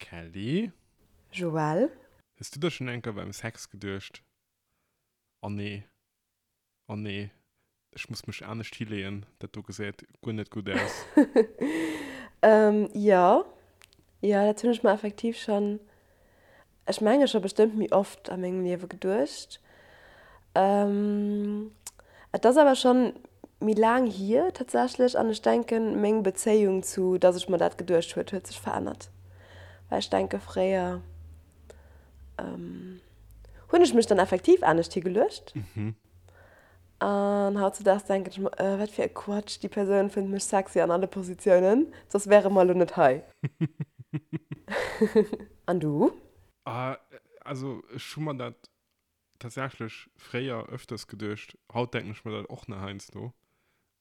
Kelly? Joël? Hues du der schonn eng Kéier beim Sex geduecht, Oh nee, oh nee, ech muss mech anescht hileeën, dat do gesäit guer net gutt aus? Jo, jo, dat hunn ech mer effektiv schonn, ech menge scho bestëmmt méi oft a mengem Liewe geduecht. Et ass awer schonn méi laang hier tatsächlech an ech denken, meng Bezéiung zu, dass ech mer dat geduecht huet, huet sech verännert. Well ech denke fréier hunn ech mech dann effektiv anescht higeluecht. An hautzedaags denken ech mer, äh, wat fir e Quatsch, déi Persoun fënnt mech sexy an alle Positiounen, soss wäre mer elo net hei. An du? Also ech hu mer dat tatsächlech fréier öfters geduecht, haut denken ech mer dat och nach heiansdo.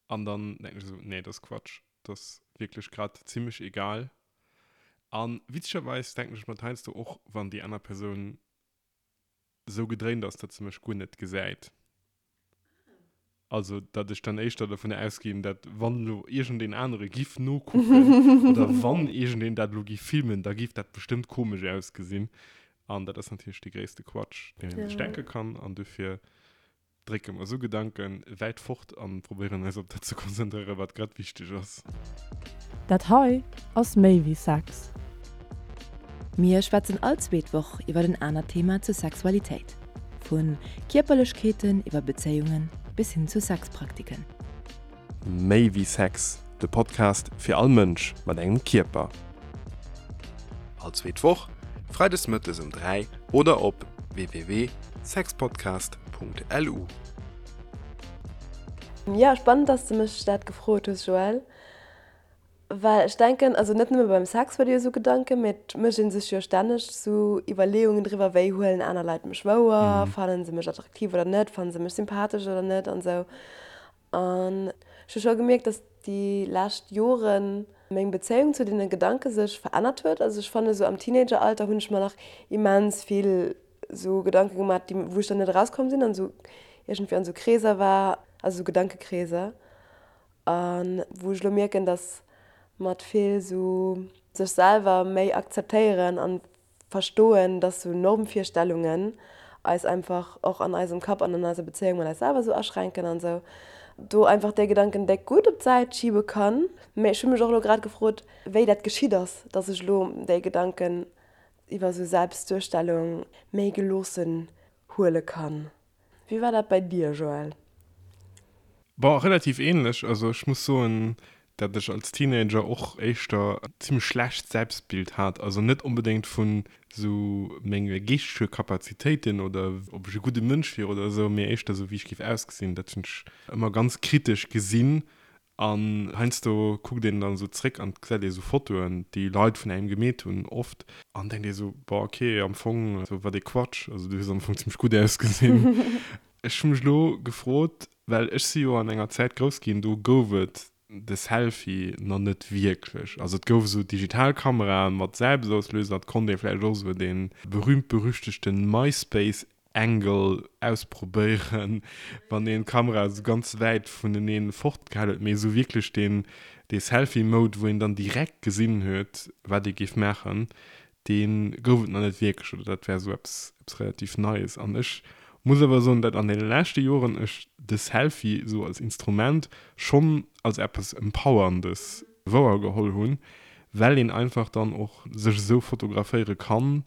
An dann denken ech esou, nee, dat ass Quatsch, dat ass wierklech grad zimmlech egal. An witzegerweis denken ech mer dat heiansdo och, wann déi aner Persoun esou gedréint ass, datt se mech guer net gesäit. Also, datt ech dann éischter dovun ausginn, datt wann elo iergendeen anere giff nokucken oder wann iergendeen dat elo giff filmen, da giff dat bestëmmt komesch ausgesinn. An dat ass natierlech dee gréisste Quatsch, deen ee sech denke kann. An dofir drécke mer esou Gedanke wäit fort an probéieren eis op dat ze konzentréieren, wat grad wichteg ass. Dat hei ass méi wéi Sex. Mir schwätzen all zweet Woch iwwer en anert Thema zur Sexualitéit, vu Kierperlechkeeten iwwer Bezéiungen bis hin zu Sexpraktiken. Méi wéi Sex, de Podcast fir all Mënsch mat engem Kierper. All zweet Woch, freides mëttes um 3 oder op www.sexpodcast.lu. Jo, spannend, dass de mech dat gefrot hues, Joël. Well ech denken, also net nëmme beim Sex huet ee jo esou Gedanken, mee et mécht ee sech jo stänneg esou Iwwerleeungen driwwer, wéi huelen aner Leit mech wouer, fannen se mech attraktiv oder net, fannen se mech sympathesch oder net an esou. An ech hu scho gemierkt, dass déi lescht Jore meng Bezéiung zu deene Gedanke sech verännert huet. Also ech fanne sou am Teenageralter hunn ech mer nach immens vill sou Gedanke gemaach, déi wou ech dann net erauskomm sinn an sou iergendwéi an sou Kreeser war, also sou Gedankekreeser. A wou ech elo mierken, dass mat vill sou sech selwer méi akzeptéieren an verstoen, dass sou Normvirstellungen eis einfach och an eisem Kapp an an eiser Bezéiung mat eis selwer sou aschränken an sou do einfach déi Gedanken déck gutt op d'Säit schiebe kann. Mee ech hu mech och elo grad gefrot, wéi dat geschitt ass, dass ech elo déi Gedanken iwwer sou Selbstduerstellung méi geloossen huele kann. Wéi war dat bei dir, Joël? Bon, relativ ähnlech. Also ech muss soen, dat ech als Teenager och éischter e zimmlech schlecht Selbstbild hat. Also net onbedéngt vun sou menge geeschtege Kapazitéiten oder ob ech e gudde Mënsch wier oder esou, mee éischter sou wéi ech géif ausgesinn. Dat hunn ech ëmmer ganz kritesch gesinn An heiansdo kuckt een dann esou zréck an gesäit ee sou Fotoen, déi Leit vun engem gemeet hunn oft, an denkt ee sou, boah ok, am Fong sou wat ee Quatsch, also du hues am Fong zimmlech gutt ausgesinn. Ech hu mech elo gefrot, well ech si jo an enger Zäit grouss ginn, do gouf et de Selfie nach net wierklech, also et gouf esou Digitalkamerae mat Selbstauslöser, et konnt ee vläicht och esou dee berühmt-berüchtegten MySpace Angle ausprobéieren, wann een d'Kamera esou ganz wäit vuneneen fort gehal huet, mee esou wierklech deen dee Selfie Mode wou een dann direkt gesinn huet wat ee géif maachen, dee gouf et nach net wierklech oder dat war esou eppes eppes relativ Neies. An ech muss awer soen, dat an deene leschte Joren ech de Selfie esou als Instrument schonn als eppes Empowerndes wouer geholl hunn, well een einfach dann och sech esou fotograféiere kann,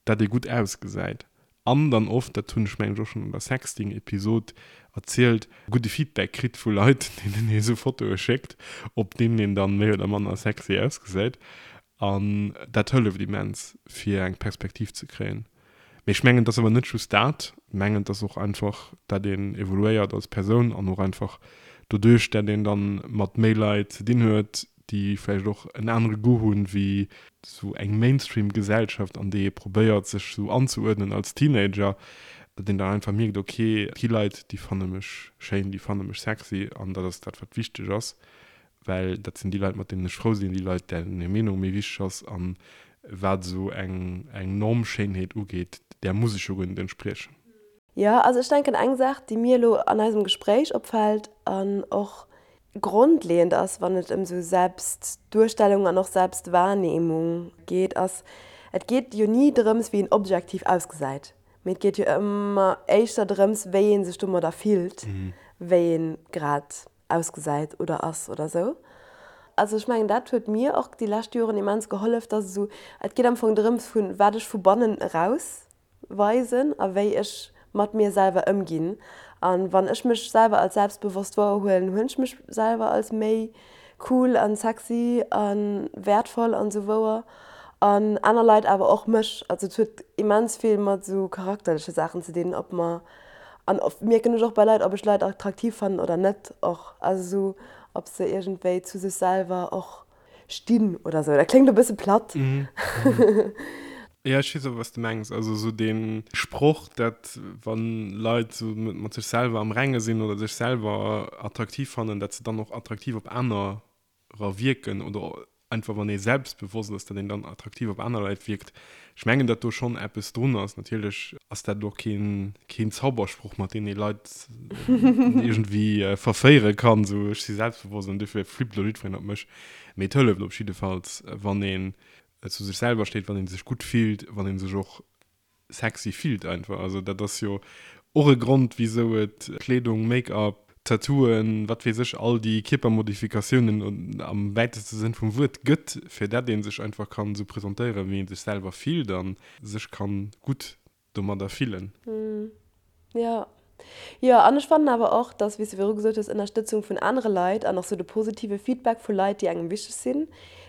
dat ee gutt ausgesäit an dann oft, dat hunn ech mengen ech och schonn an der Sexting-Episod erzielt, gudde Feedback kritt vu Leit, deenen ee sou Fotoe schéckt, op deenen een dann méi oder manner sexy ausgesäit. An dat hëlleft immens, fir eng Perspektiv ze kréien. Mee ech mengen, et ass awer net just dat. Ech mengen, et ass och einfach, dat een evoluéiert als Persoun an och einfach doduerch, dat een dann mat méi Leit ze dinn huet, déi vläicht och en anere Goût hunn, wéi sou eng Mainstream-Gesellschaft, an déi ee probéiert, sech sou anzeuerdnen als Teenager, datt een dann einfach mierkt, ok, et gi Leit, déi fanne mech schéin, déi fanne mech sexy an dat ass dat, wat wichteg ass, well dat sinn déi Leit, mat deenen ech frou sinn, déi Leit, dären hir Meenung méi wichteg ass. An wat esou eng Normschéinheet ugeet, där muss ech jo guer net entspriechen. Jo, also ech denken, eng Saach, déi mir elo an eisem Gespréich opfält an och. grondleeënd ass, wann et ëm esou Selbstduerstellung an och Selbstwahrnehmung geet, ass, et geet jo ni drëms, wéi een objektiv ausgesäit, mee et geet jo ëmmer éischter drëms, wéi ee sech domadder fillt, wéi ee grad ausgesäit oder ass oder esou. Also ech mengen, dat huet mir och déi lescht Joren immens gehollef, dass esou, et geet am Fong drëms, vu wat ech vu bannen eraus weisen a wéi ech mat mir selwer ëmginn. A wann ech mech selwer als selbstbewosst wouerhuelen, huelen ech mech selwer als méi cool an sexy a wäertvoll an esou wouer an aner Leit awer och mech. Also et huet immens vill mat esou charakterleche Saachen ze dinn, ob mer, an oft mierken ech och bei Leit, ob ech Leit attraktiv fannen oder net och, also esou ob se iergendwéi zu sech selwer och Stinn oder sou. Dat kléngt e bësse platt. Jo, ech weess awer, wat s de mengs. Also esou dee Sproch, dat wann Leit esou mat sech selwer am Renge sinn oder sech selwer attraktiv fannen, dat se dann och attraktiv op anerer wierken oder einfach wann ee selbstbewosst ass, dat een dann attraktiv op aner Leit wierkt. Ech mengen, dat do schonn eppes drun ass. Natierlech ass dat elo keen Zaubersproch, mat deem ee Leit iergendwéi verféiere kann, esou ech si selbstbewosst an dofir flippt elo jiddwereen op mech. Mee et hëlleft op jiddefalls, wann een zu sech selwer steet, wann ee sech gutt fillt, wann ee sech och sexy fillt einfach. Also dat ass jo och e Grond, wisou et Kleedung, Make-up, Tattooen, wat weess ech, all déi Kierpermodifikatiounen am wäiteste Sënn vum Wuert gëtt, fir dat ee sech einfach kann esou presentéieren, wéi ee sech selwer fillt a sech kann gutt domadder fillen. Jo. Jo, an ech fannen awer och, dass, wéi s de viru gesot hues, Ënnerstëtzung vun anere Leit an och sou de positive Feedback vu Leit, déi engem wichteg sinn,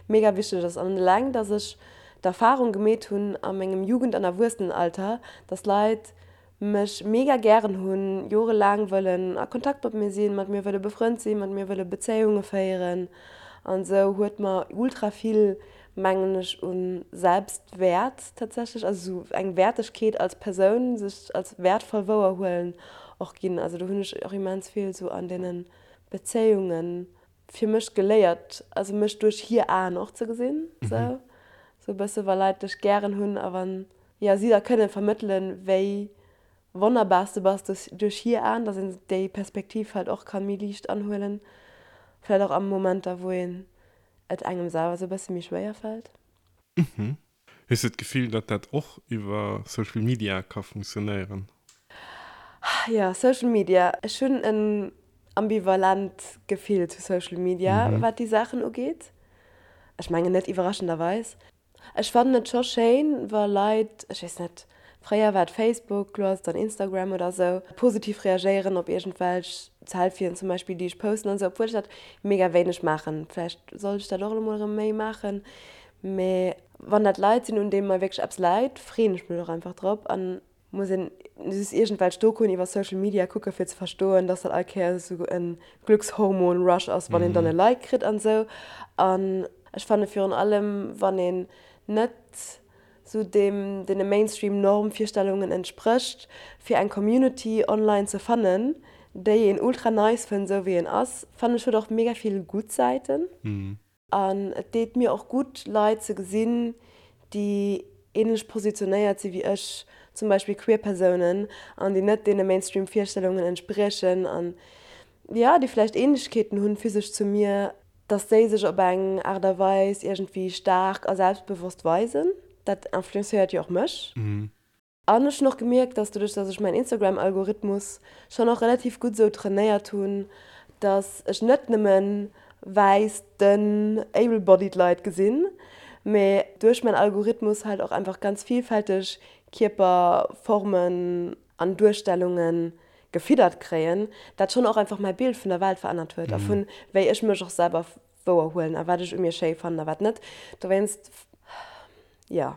mega wichteg ass. An eleng, dass ech d'Erfarung gemeet hunn a mengem Jugend an Erwuessenenalter, dass Leit mech mega gären hunn, jorelaang wëllen a Kontakt mat mir sinn, mat mir wëlle befrënnt sinn, mat mir wëlle Bezéiunge féieren an esou, huet mer ultra vill, mengen ech, u Selbstwäert tatsächlech, also esou eng Wäertegkeet als Persoun, sech als wäertvoll wouerhuelen och ginn. Also do hunn ech och immens vill esou an deene Bezéiunge fir mech geléiert, also mech duerch hir Aen och ze gesinn, esou e bësse wa Leit dech gären hunn a wann jo, si da kënne vermëttelen, wéi wonnerbar s de bass duerch hir Aen, dass een déi Perspektiv halt och ka méi liicht anhuelen, vläicht och a Momenter, wou een et engem selwer sou e bësse méi schwéier fält. Mhm. Hues de d'Gefill, datt dat och iwwer Social Media ka funktionéieren? Jo, Social Media. Ech hunn en ambivalent Gefill zu Social Media, wat déi Saachen ugeet. Ech mengen net iwwerraschenderweis. Ech fannen et scho schéin, wa Leit, ech weess net, fréier war et Facebook, lo ass et dann Instagram oder sou, positiv reagéieren op iergendwelch Selfien zum Beispill, déi ech posten an sou, obwuel ech dat mega wéineg maachen. Vläicht sollt ech dat och elo mol erëm méi maachen. Mee wann dat Leit sinn, un deene mer wierklech eppes läit, freeën ech mech och einfach drop an Muss een just iergendwelch Dokuen iwwer Social Media kucken fir ze verstoen, dass dat all Kéiers esou en Glückshormon Rush ass wann een dann e Like kritt an esou. An ech fanne virun allem wann een net esou deem deene Mainstream Normvirstellungen entsprécht, fir eng Community online ze fannen déi een ultra nice fënnt esou wéi een ass, fannen ech huet och mega vill gutt Säiten. An et deet mir och gutt, Leit ze gesinn, déi änlech positionéiert si wéi ech, zum Beispill queer Persounen, an déi net deene Mainstream-Virstellungen entspriechen an, jo, déi vläicht Änlechkeeten hunn physesch zu mir, dass déi sech op eng Aart a Weis iergendwéi staark a selbstbewosst weisen. Dat influencéiert jo och mech. An ech hunn och gemierkt, dass doduerch, dass ech mäin Instagram-Algorithmus schonn och relativ gutt esou trainéiert hunn, dass ech net nëmme wäiss, dënn, able-bodied Leit gesinn, mee duerch mäin Algorithmus halt och einfach ganz vielfälteg Kierperformen an Duerstellunge gefiddert kréien, dat schonn och einfach mäi Bild vun der Welt verännert huet a vun wéi ech mech och selwer wouer huelen a wat ech u mir schéi fannen a wat net. Dowéinst, jo.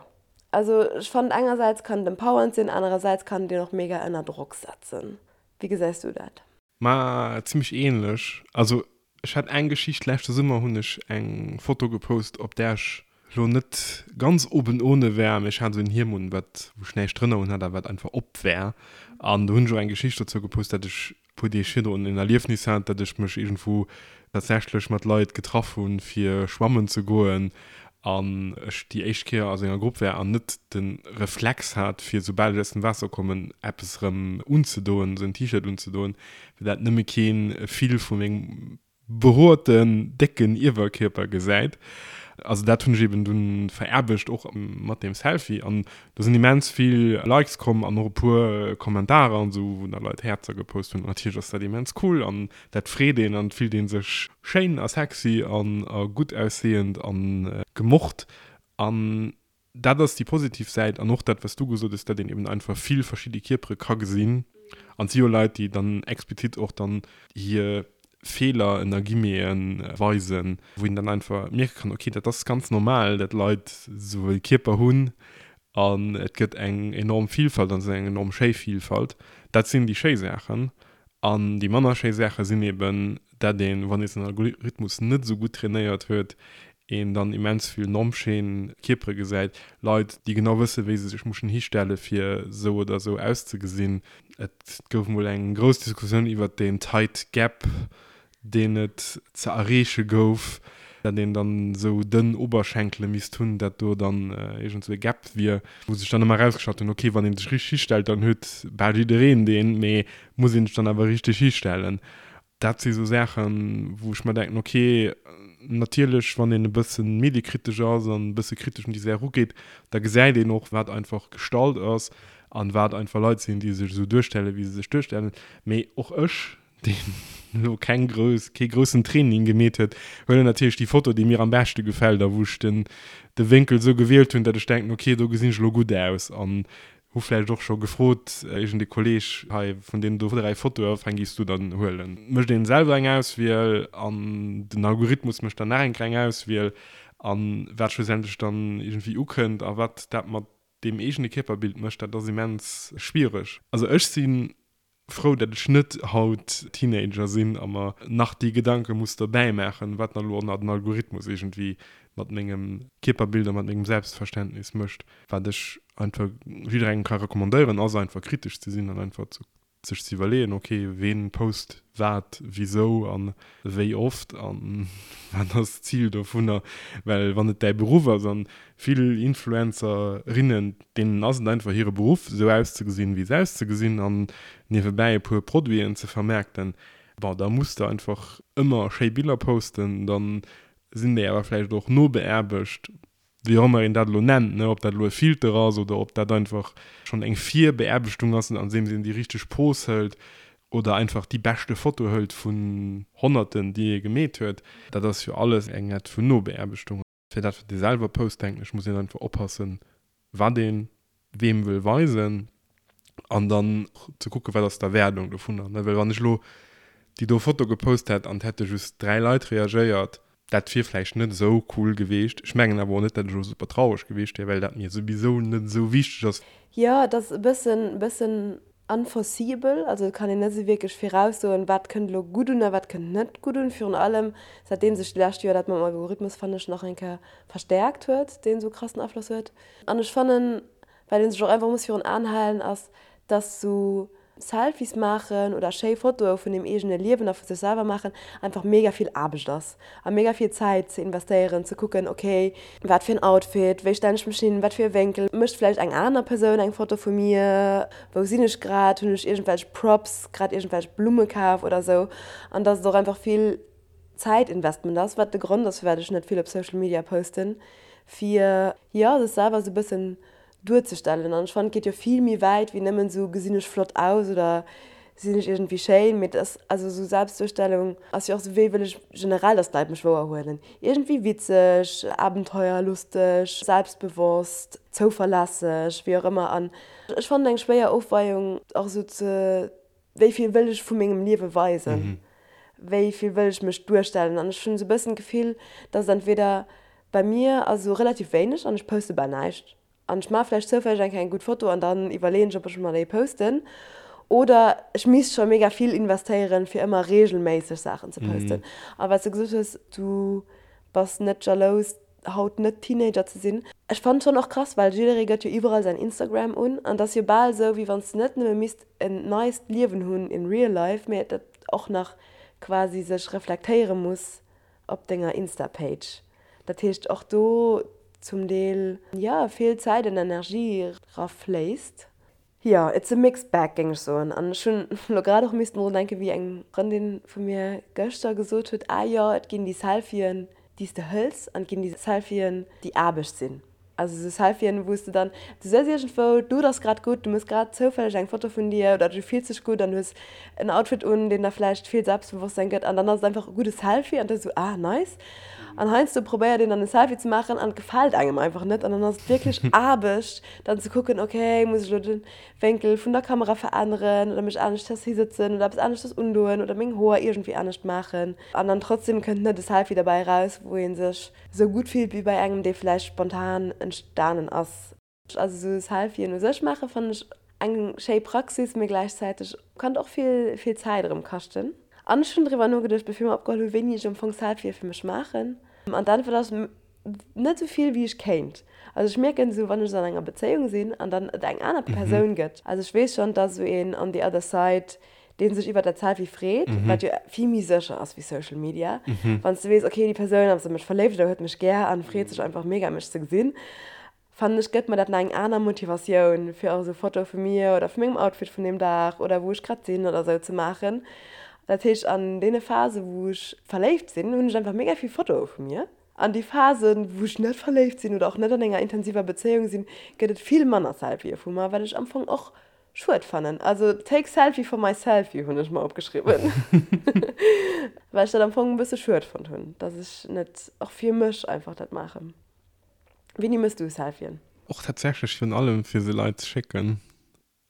Also ech fannen engersäits kann et empowernd sinn, anerersäits kann et een och mega ënner Drock setzen. Wéi gesäis du dat? Ma zimmlech ähnlech. Also ech hat eng Geschicht, leschte Summer hunn ech eng Foto gepost op där ech lo net ganz oben ohne war, mee ech hat esou en Hiem un wat wou ech näischt drënner un hat a wat einfach op war an do hunn ech och eng Geschicht dozou gepost, dat ech puer Deeg virdrun en Erliefnis hat, dat ech mech iergendwou tatsächlech mat Leit getraff hunn, fir schwammen ze goen an ech déi éischt Kéier a senger Grupp war an net de Reflex hat, fir soubal ech aus dem Waasser kommen, eppes erëm unzedoen, esou en T-Shirt unzedoen, well dat nëmme kee Fil vu mengem. behoerten, décken Iewerkierper gesäit. Also dat hunn ech eben dunn veraarbecht, och mat deem Selfie. An do sinn immens vill Likes komm an och e puer Kommentarer an esou, wou da Leit Häerzer gepost hunn. Natierlech ass dat immens cool an dat freet een an et fillt ee sech schéin a sexy an a gutt aussehend an gemocht. An Dat ass déi positiv Säit an och dat, wat s du gesot hues, datt een eben einfach vill verschidde Kierpere ka gesinn. An et si jo Leit, déi dann explizit och dann hir Feeler, ënner Guillemeten, weisen, wou een dann einfach mierke kann, okay, dat ass ganz normal, datt Leit esou e Kierper hunn an et gëtt eng enorm Vielfalt an et ass eng enorm schéi Vielfalt. Dat sinn déi schéi Saachen. An déi manner schéi Saache sinn eben, dat een, wann ee säin Algorithmus net esou gutt trainéiert huet, een dann immens vill nonschéin Kierpere gesäit, Leit, déi genau wëssen, wéi se sech mussen histelle fir esou oder esou auszegesinn. Et gouf mol eng grouss Diskussioun iwwert deen Tight Gap, deen et ze erreeche gouf, dat een dann esou dënn Oberschenkele misst hunn, dat do dann iergend esou e Gap wier, wou sech dann ëmmer erausgestallt hunn, ok, wann ee sech richteg histellt, dann huet bal jiddereen deen, mee muss een sech dann awer richteg histellen? Dat si sou Saachen, wou ech mer denken, ok, natierlech, wann een e bësse mediekritesch ass an e bësse kritesch un déi Saach erugeet, da gesäit een och, wat einfach gestallt ass an wat einfach Leit sinn, déi sech esou duerstellen, wéi se sech duerstellen. Mee och ech deen elo keng grouss, kee groussen Training gemeet huet, huelen natierlech déi Foto, déi mir am beschte gefält a wou ech den, de Wénkel esou gewielt hunn, datt ech denken, ok, do gesinn ech elo gutt aus an hu vläicht och scho gefrot, iergend ee Kolleeg, hei, vun deenen do 3 Fotoe, wat fir eng géifs du dann huelen? Mécht een selwer eng Auswiel an den Algorithmus mécht dann nach eng kleng Auswiel an wat schlussendlech dann iergendwéi ukënnt a wat dat mat deem eegene Kierperbild mécht, dat ass immens schwiereg. Also ech si frou, dat ech net haut Teenager sinn a mer nach déi Gedanke muss dobäi maachen, wat dann elo och nach den Algorithmus iergendwéi mat mengem Kierperbild a mat mengem Selbstverständnis mécht. Wat ech einfach jidderengem ka recommandéieren, ass einfach kritesch ze sinn an einfach ze sech ze iwwerleeën, ok, ween post wat, wisou a wéi oft a wat ass d'Zil dovunner. Well wann et däi Beruff ass an Vill Influencerinnen, deenen ass et einfach hire Beruff, esou auszegesinn, wéi se auszegesinn an niewebäi e puer Produiten ze vermaarkten. Bon, da muss de einfach ëmmer schéi Biller posten, da sinn déi awer vläicht och nobeaarbecht, wéi och ëmmer een dat elo nennt, ne, ob dat elo e Filter ass oder ob dat einfach schonn eng Virbeaarbechtung ass, andeems een déi richteg Pose hëlt oder einfach déi beschte Foto hëlt vun Honnerten, déi ee gemeet huet. Dat ass jo alles eng Art vun Nobeaarbechtung. Fir dat wat ee selwer post, denken ech, muss een einfach oppassen, wat ee weem wëll weisen an dann ze kucken, wat ass d'Erwaardung dovunner. Well wann ech elo déi do Foto gepost hätt an et hätte just 3 Leit reagéiert, dat wier vläicht net esou cool geweecht. Ech mengen awer och net, datt ech elo super traureg geweecht wier, well dat mir souwisou net esou wichteg ass. Jo, et ass e bëssen, bëssen unforeseeable, also et kann een net esou wierklech viraussoen, wat kënnt elo gutt un a wat kënnt net gutt un. Virun allem säitdeem sech déi lescht Joer dat mam Algorithmus, fannen ech, nach eng Kéier verstäerkt huet, deen esou krassen Afloss huet. An ech fannen, wat ee sech och einfach muss virun Aen halen, ass, dass esou Selfies maachen oder schéi Fotoe vun dem eegene Liewen a vu sech selwer maachen einfach mega vill Aarbecht ass a mega vill Zäit ze investéieren, ze kucken, ok, wat fir en Outfit, wéi stellen ech mech hin, wat fir e Wénkel, mécht vläicht eng aner Persoun eng Foto vu mir, wou sinn ech grad, hunn ech iergendwelch Props, grad iergendwelch Blumme kaf oder sou. An dass et och einfach vill Zäitinvestment ass, wat de Grond ass, firwat ech net vill op Social Media posten, fir, jo, sech selwer sou e bëssen duerzestellen. An ech fannen, et geet jo vill méi wäit wéi nëmmen esou, gesinn ech flott aus oder sinn ech iergendwéi schéin. Mee et ass, also esou Selbstduerstellung ass jo och esou, wéi wëll ech generell, dass d'Leit mech wouerhuelen. Iergendwéi witzeg, abenteuerlusteg, selbstbewosst, zouverlässeg, wéi och ëmmer. An ech fannen eng schwéier Ofweiung och esou ze, wéi vill wëll ech vu mengem Liewe weisen, wéi vill wëll ech mech duerstellen. An ech hunn esou e bëssen d'Gefill, dass et entweder Bei mir ass esou relativ wéineg an ech poste bal näischt. An ech maache vläicht zoufälleg eng Kéier eng gutt Foto an dann iwwerleeën ech, ob ech mer déi posten. Oder ech misst scho mega vill investéieren, fir ëmmer reegelméisseg Saachen ze posten. A wat s de gesot hues, du bass net jalous, haut net Teenager ze sinn. Ech fannen schonn och krass, well jidderee gëtt jo iwwerall säin Instagram un an et ass jo bal esou, wéi wann s de net nëmme misst en neist Liewen hunn in real life, mee dat och nach quasi sech reflektéiere muss op denger Insta Page. Dat heescht och do zum Deel jo vill Zäit an Energie ra fléisst. Jo, it's a mixed bag, géing ech soen. An ech hunn elo grad och missten drun denken, wéi eng Frëndin vu mir gëschter gesot huet, ah jo, et ginn déi Selfien, déi s de hëls, an et ginn déi Selfien, déi Aarbecht sinn. Also esou Selfien, wou s de dann, du sëtz iergendwou, d'Lut ass grad gutt, du mëss grad zoufälleg eng Foto vun dir oder du fills dech gutt an hues en Outfit un, deen der vläicht vill Selbstbewosstsein gëtt an dann ass et einfach e gudde Selfie an da esou, ah nice. An heiansdo probéiert een dann e Selfie ze maachen an et gefält engem einfach net an dann ass et wierklech Aarbecht, Dann ze kucken, ok, muss ech elo de Wénkel vun der Kamera veränneren oder mech aneschters hisëtzen oder eppes aneschters undoen oder meng Hoer iergendwéi anescht maachen. An dann trotzdem kënnt net e Selfie derbäi eraus, wou ee sech esou gutt fillt wéi bei engem, dee vläicht spontan entstanen ass. Also esou Selfien u sech maache fannen ech eng schéi Praxis, mee gläichzäiteg kann et och vill, vill Zäit erëm kaschten. An ech hunn driwwer nogeduecht, bevir mer opgeholl hunn, wéini ech am Fong Selfië fir mech maachen. An d'Äntwert ass, Net esou vill wéi ech kéint. Also ech mierken esou wann ech an enger Bezéiung sinn an dann et eng aner Persoun gëtt, also ech weess schonn, dass esou een on the other side, dee sech iwwert dat Selfie freet, wat jo vill méi sécher ass wéi Social Media, wann s de weess, okay déi Persoun ass a mech verléift oder huet mech gär an freet sech einfach mega mech ze gesinn, fannen ech gëtt mer dat nach eng aner Motivatioun fir och esou Fotoe vu mir oder vu mengem Outfit vun deem Dag oder wou ech grad sinn oder esou ze maachen. Dat heescht an deene Phase wou ech verléift sinn, hunn ech einfach mega vill Fotoe vu mir. An déi Phasen wou ech net verléift sinn oder och net an enger intensiver Bezéiung sinn, gëtt et vill manner Selfië vu mer, wat ech am Fong och schued fannen. Also take selfie for my selfie hunn ech mer opgeschriwwen, well ech dat am Fong e bësse schued fonnt hunn, dass ech net och fir mech einfach dat maachen. Wéini mëss du Selfien? Och tatsächlech virun allem fir se Leit ze schécken,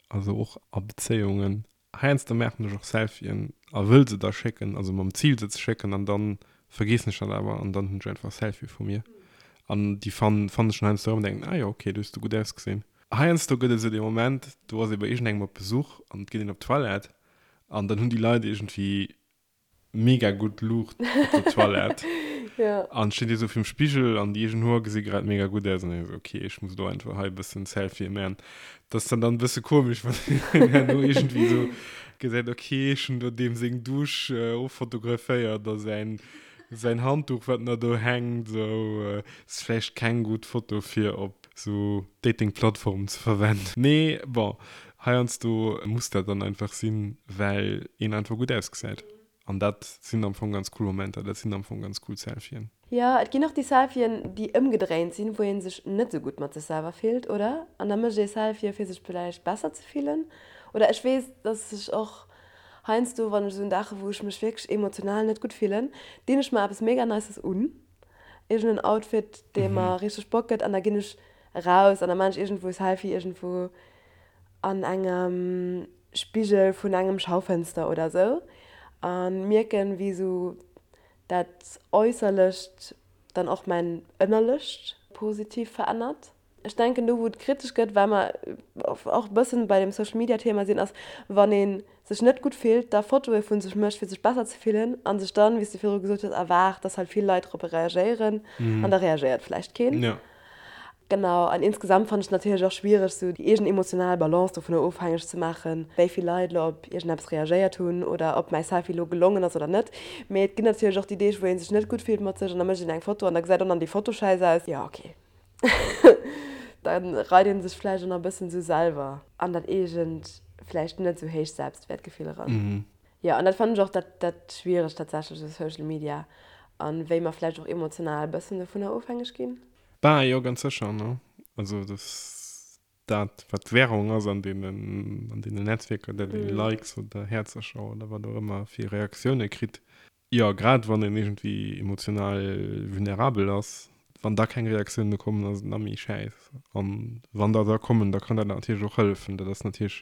also och a Bezéiungen. Heiansdo maachen ech och Selfien a wëll se da schécken, also mam Zil se ze schécken an dann vergeessen ech dat awer an dann hunn ech einfach Selfie vu mir an déi fannen ech dann heiansdo erëm an denken, ah jo ok, do hues du gutt ausgesinn. Heiansdo gëtt et esou dee Moment, do ass ee bei iergendengem op Besuch an et geet een op d'Toilette an dann hunn déi Leit iergendwéi mega gutt Luucht op der Toilette. Ja. An steet dir sou virum Spigel an déi eegen Hoer gesi grad mega gutt aus an ech sou, okay, ech muss elo einfach hei e bëssen Selfie man. Dat ass dann dann e bësse komesch, wann een herno iergendwéi sou gesäit, okay, ech hunn do deem seng Dusch offotograféiert a säin, säin Handduch, wat nach do hänkt, sou. Ass vläicht keng gutt Foto fir op sou Dating-Plattformen ze verwenden. Mee bon, Heiansdo muss dat dann einfach sinn, well een einfach gutt ausgesäit. An dat sinn am Fong ganz cool Momenter, dat sinn am Fong ganz cool Selfien. Jo, et ginn och déi Selfien, déi ëmgedréint sinn, wou ee sech net esou gutt mat sech selwer fillt, oder? An da mécht ee Selfie fir sech villäicht besser ze fillen. Oder ech weess, dass ech och heiansdo, wann ech esou en Dag hu wou ech mech wierklech emotional net gutt fillen, dinn ech mer eppes mega Nices un, iergend en Outfit, dee mer richteg Bock gëtt, an da ginn ech eraus an da maan ech iergendwou e Selfie iergendwou an engem Spigel vun engem Schaufenster oder sou an mierken wéi sou dat Äusserlecht dann och mäin Ënnerlecht positiv verännert. Ech denken do wou et kritesch gëtt, well mer och e bëssen bei dem Social Media Thema sinn, ass wann ee sech net gutt fillt, da Fotoe vu sech mécht fir sech besser ze fillen an sech dann, wéi s de virdru gesot hues, erwaart, dass halt vill Leit drop reagéieren an da reagéiert vläicht keen. Genau, an insgesamt fannen ech et natierlech och schwiereg, sou déi eegen emotional Balance dovunner ofhängeg ze maachen, wéi vill Leit elo op iergendeppes reagéiert hunn oder ob mäi Selfie elo gelongen ass oder net. Mee et ginn natierlech och déi Deeg, wou ee sech net gutt fillt mat sech an da mécht een eng Foto an da gesäit och nach déi Foto schäiss aus. Jo, ok, da reit ee sech vläicht och nach e bëssen esou selwer an dat eegent, vläicht net esou héicht Selbstwäertgefill eran. Jo, an dat fannen ech och dat, dat Schwieregt tatsächlech u Social Media an wéi mer vläicht och emotional e bëssen dovunner ofhängeg ginn. Bah, jo, ganz sécher, ne? Also, dass dat, wat d'Währung ass an deenen, an deenen Netzwierker, dat ee Likes oder Häerzercher oder wat och ëmmer fir Reaktioune kritt. Jo, grad wann een iergendwéi emotional vulnerabel ass, wann da keng Reaktioune kommen, ass et nach méi schäiss. An wann der da kommen, da kann dat natierlech och hëllefen. Dat ass natierlech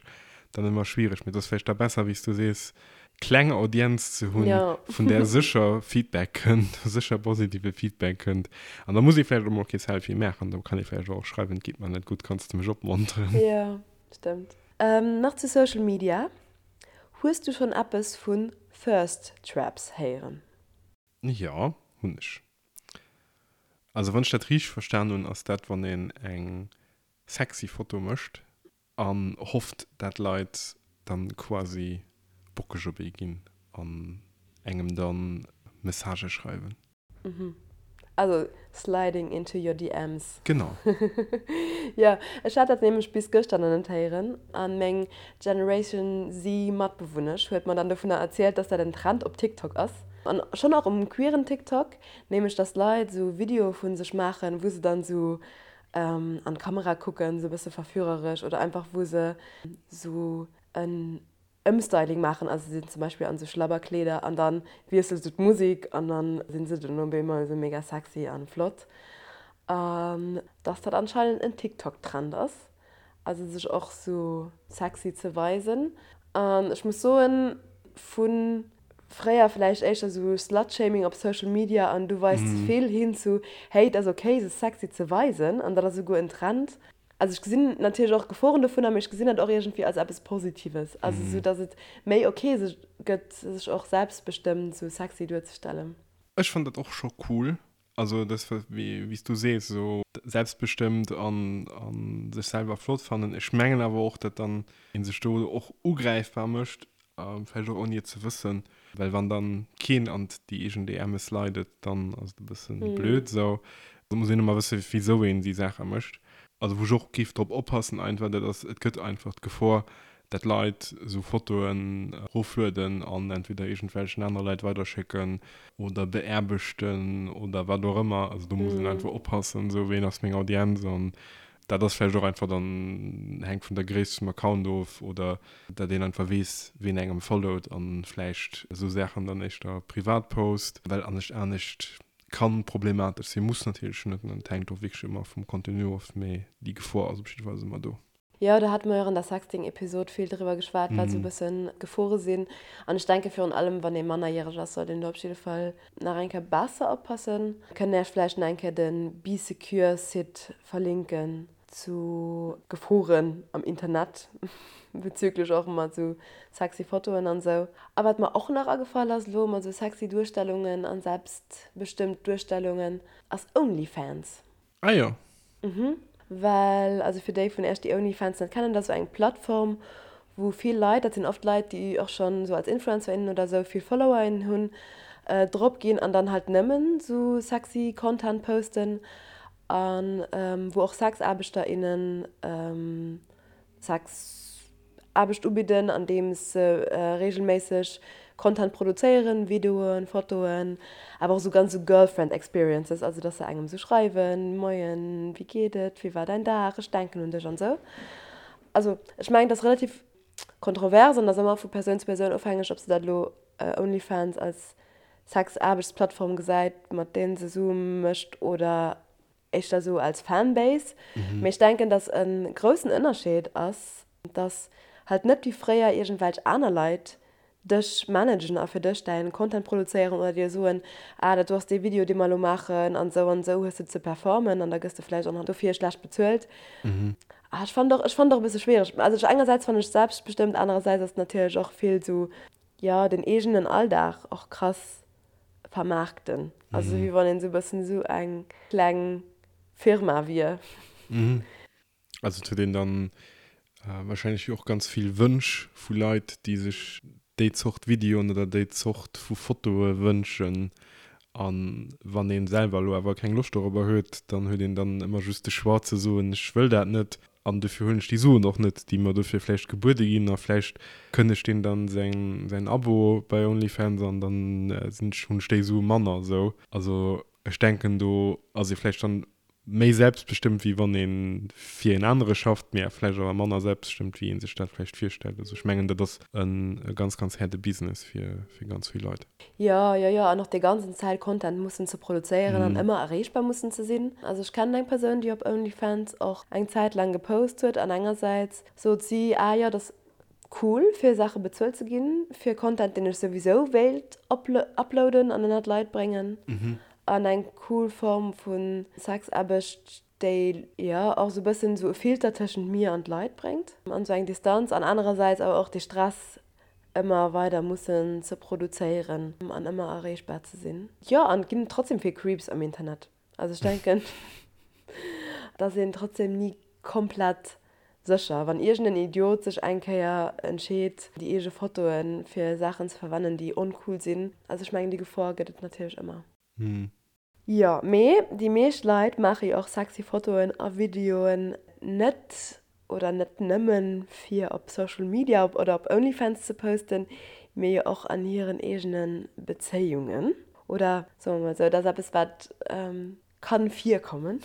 dann ëmmer schwiereg, mee et ass vläicht da besser, wéi s du sees, kleng Audienz ze hunn, vun där sécher Feedback kënnt, sécher positive Feedback kënnt. An da muss ee vläicht och mol kee Selfie maachen, da kann ee vläicht och schreiwen, et geet mer net gutt, kanns de mech opmonteren? Jo, stëmmt. Nach zu Social Media, Hues du schonn eppes vun Thirst Traps héieren? Jo, hunn ech. Also wann ech dat richteg verstan hunn, ass dat wann een eng sexy Foto mécht An hofft dat Leit dann quasi bockeg op ee ginn an engem dann Messagë schreiwen. Mhm. Also sliding into your DMs. Genau. Jo, ech hat dat nämlech bis gëschter nach net héieren an meng Generation Z Matbewunnesch huet mer dann dovunner erzielt, dass dat en Trend op TikTok ass. An schonn och um queeren TikTok, nämlech dass Leit sou Videoe vu sech maachen, wou se dann sou an d'Kamera kucken, sou e bësse verführeresch oder einfach wou se sou en Ëmstyling maachen, also se sinn zum Beispill an sou Schlabberkleeder an dann wiesselt sou d'Musik an dann sinn se dunn op eemol sou mega sexy an flott. An dass dat anscheinend en TikTok Trend ass, also sech och sou sexy ze weisen. An ech muss soen, vu fréier vläicht éischter sou Slutshaming op Social Media an du weis ze vill hin zu hey et ass ok sech sexy ze weisen an dat ass souguer en Trend, Also ech gesinn natierlech och Geforen dovunner, mee ech gesinn dat och iergendwéi als eppes Positives. Also esou, datt et méi ok sech gëtt, sech och selbstbestëmmt esou sexy duerzestellen. Ech fannen dat och scho cool. Also dat wéi s du sees, esou selbstbestëmmt an sech selwer flott fannen. Ech mengen awer och, datt dann ee sech do och ugräifbar mécht Vläicht och ouni et ze wëssen, well wann dann keen an déi eegen DMs slidet, dann ass et e bëssen blöd esou. Et muss een ëmmer wëssen, wisou een déi Saache mécht. Also wou ech och géif drop oppassen einfach, dat ass, et gëtt einfach d'Gefor, dat Leit esou Fotoen eroflueden an entweder iergendwelchen anere Leit weiderschécken oder beaarbechten oder wat och ëmmer. Also do muss een einfach oppassen, esou ween ass meng Audienz an Dat ass vläicht och einfach dann, hänkt vun der Gréisst vum Account of oder dat een einfach weess, ween engem followt an vläicht esou Saachen dann éischter privat post, well anescht anescht kann problematesch sinn, muss natierlech net, et hänkt och wierklech ëmmer vum Contenu of, mee déi Gefor ass op jiddefalls ëmmer do. Jo, do hate mer jo och an der Sexting-Episod vill driwwer geschwat, wat esou e bëssen d'Gefore sinn. An ech denke virun allem, wann ee mannerjäreg ass, sollt een do op jidde Fall Nach eng Kéier besser oppassen. Kënnt Äech vläicht nach eng Kéier de Bee Secure Site verlinken zu Geforen am Internet bezüglech och mat sou sexy Fotoen an sou. A wat mer och nach agefall ass elo mat sou sexy Duerstellungen an selbstbestëmmt Duerstellungen ass Onlyfans. Ah jo. Mhm. Well, also fir déi vun Iech, déi OnlyFans net kennen, dat ass esou eng Plattform, wou vill Leit, dat sinn oft Leit, déi och schonn esou als Influencer, innen oder esou vill Follower, innen hunn, drop ginn an dann halt nëmmen esou sexy Content posten a wou och Sexaarbechter, innen Sex. Aarbecht ubidden, andeems se reegelméisseg Content produzéieren, Videoen, Fotoen, awer och esou ganz esou Girlfriend Experiences, also dass se engem esou schreiwen, Moien, wéi geet et, wéi war däin Dag, ech denken un dech an esou. Also ech mengen, et ass relativ kontrovers an ass ëmmer vu Persoun zu Persoun ofhängeg, ob se dat elo Onlyfans als Sexaarbechtsplattform gesäit, mat deenen se Sue mécht oder éischter esou als Fanbase, mee ech denken, dass e groussen Ënnerscheed ass, dass halt net wéi fréier iergendwelch aner Leit dech managen a fir dech däin Content produzéieren oder dir soen, ah dat do ass dee Video dee mer elo maachen an esou an esou hues de ze performen an da gëss de vläicht och nach dofir schlecht bezuelt. Ah ech fannen och, ech fannen och e bësse schwiereg. Also ech engersäits fannen ech selbstbestëmmt, anerersäits ass et natierlech och vill esou, jo den eegenen Alldag och krass vermaarkten. Also wéi wann een esou e bëssen esou eng kleng Firma wier. Also et huet een dann wahrscheinlech jo och ganz vill Wënsch vu Leit, déi sech déi Zort Videoen oder déi Zort vu Fotoe wënschen. A wann ee selwer elo awer keng Loscht dorobber huet, dann huet een dann ëmmer just de Choix ze soen, ech wëll dat net. An dofir huelen ech déi Suen och net, déi mer dofir vläicht gebuede ginn. A vläicht kënnegt deen dann säin, säin Abo bei OnlyFans an dann sinn ech, hunn ech déi Sue manner. Esou. Also ech denken, do ass ee vläicht dann méi selbstbestëmmt, wéi wann ee fir een anere schafft, mee vläicht awer manner selbstbestëmmt, wéi ee sech dat vläicht virstellt. Also ech mengen, dat ass e ganz, ganz haarde Business fir, fir ganz vill Leit. Jo, jo, jo, an och déi ganzen Zäit Content mussen ze produzéieren an ëmmer erreechbar mussen ze sinn. Also ech kennen eng Persoun, déi op OnlyFans och eng Zäit laang gepost huet an engersäits sot si, ah jo, dat ass cool fir Saache bezuelt ze ginn, fir Content deen ech souwisou wéilt uploaden an ënnert d'Leit bréngen an eng cool Form vu Sexaarbecht, déi jo och esou e bëssen esou e Filter tëschent mir an d'Leit bréngt an esou eng Distanz an anerersäits awer och dee Stress ëmmer weider mussen ze produzéieren an ëmmer erreechbar ze sinn. Jo, an et ginn trotzdem vill Creeps am Internet. Also ech denken, et ass een trotzdem ni komplett sécher. Wann iergend en Idiot sech eng Kéier entscheet, déi eege Fotoe fir Saachen ze verwennen, déi oncool sinn. Also ech mengen, déi Gefor gëtt et natierlech ëmmer. Jo, mee déi meescht Leit maache jo och sexy Fotoen a Videoen net oder net nëmmen fir op Social Media oder op Onlyfans ze posten, mee jo och an hiren eegene Bezéiungen. Oder soe mer mol esou, et ass eppes wat kann virkommen.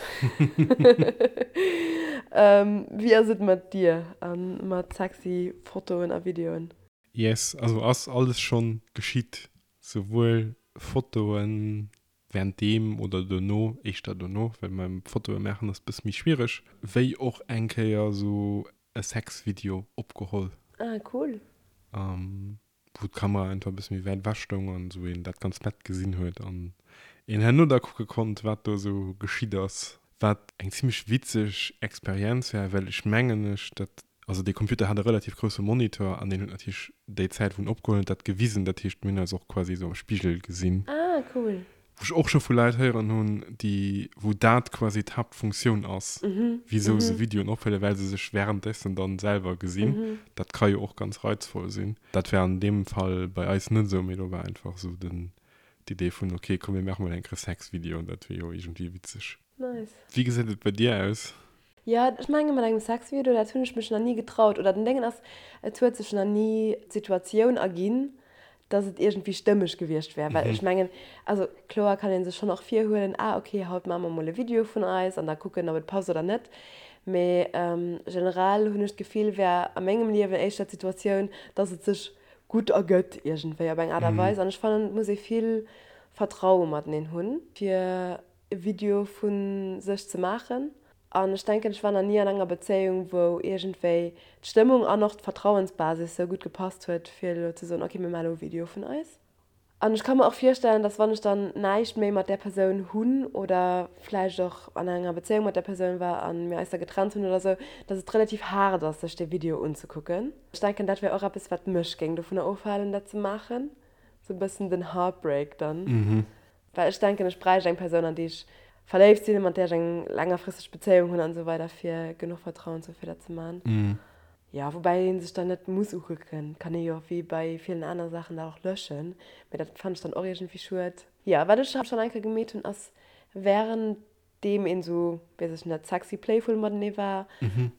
Wéi ass et mat dir a mat sexy Fotoen a Videoen? Yes, also ass alles schonn geschitt, souwuel Fotoen währenddeem oder dono, éischter dono, well beim Fotoe maachen ass bësse méi schwiereg, wéi och eng Kéier sou e Sexvideo opgeholl. Ah cool. Wou d'Kamera einfach e bësse méi wäit ewech stoung an esou een dat ganz nett gesinn huet an een herno da kucke konnt, wat do esou geschitt ass. Wat eng zimmlech witzeg Experienz war, well ech mengen ech dat, also dee Computer hat e relativ grousse Monitor an deen huet natierlech déi Zäit wou en opgeholl huet dat gewisen, dat heescht mir hunn eis och quasi esou am Spigel gesinn. Ah cool. Wou ech och scho vu Leit héieren hunn, déi, wou dat quasi d'Haaptfunktioun ass, wisou se Videoen ophuelen, well se sech währenddessen dann selwer gesinn. Dat ka jo och ganz reizvoll sinn. Dat war an deem Fall bei eis net esou, mee do war einfach esou den, d'Idee vun, ok, komm mir maache mol eng Kéier Sexvideo, dat wier jo iergendwéi witzeg. Nice. Wéi gesäit et bei dir aus? Jo, ech menge mat engem Sexvideo, dat hunn ech mech nach ni getraut. Oder den Déngen ass, et huet sech nach ni d'Situatioun erginn, dass et iergendwéi stëmmeg gewiescht wär. Well ech mengen, also kloer kann ee sech schonn och virhuelen, ah ok, haut maache mer mol e Video vun eis an da kucken, ob et passt oder net. Mee generell hunn ech d'Gefill, wär a mengem Liewen éischter d'Situatioun, dass et sech gutt ergëtt iergendwéi op eng Aart a Weis. An ech fannen, et muss ee vill Vertraue mateneen hunn, fir e Video vu sech ze maachen. An ech denken, ech war nach ni an enger Bezéiung, wou iergendwéi d'Stëmmung an och d'Vertrauensbasis sou gutt gepasst huet, fir elo ze soen, ok, mir maachen elo e Video vun eis. An ech ka mer och virstellen, dass wann ech dann näischt méi mat där Persoun hunn oder vläicht och an enger Bezéiung mat där Persoun war a mir eis da getrennt hunn oder sou, dass et relativ haart ass, sech dee Video unzekucken. Ech denken, dat wär och eppes, wat mech géing dovunner ofhalen, dat ze maachen, sou e bëssen den Heartbreak dann. Well ech denken, ech bräicht eng Persoun, an déi ech verléift sinn, mat där ech eng längerfristeg Bezéiung hunn an esou weider, fir genuch Vertrauen ze hu fir dat ze man. Jo, woubäi ee sech dann net muss ukucken, kann ee jo wéi bei villen aner Saachen dat och löschen, mee dat fannen ech dann och iergendwéi schued. Jo, wat ech schonn eng Kéier gemeet hunn, ass wärend deem een esou, weess ech net, sexy playful matenee war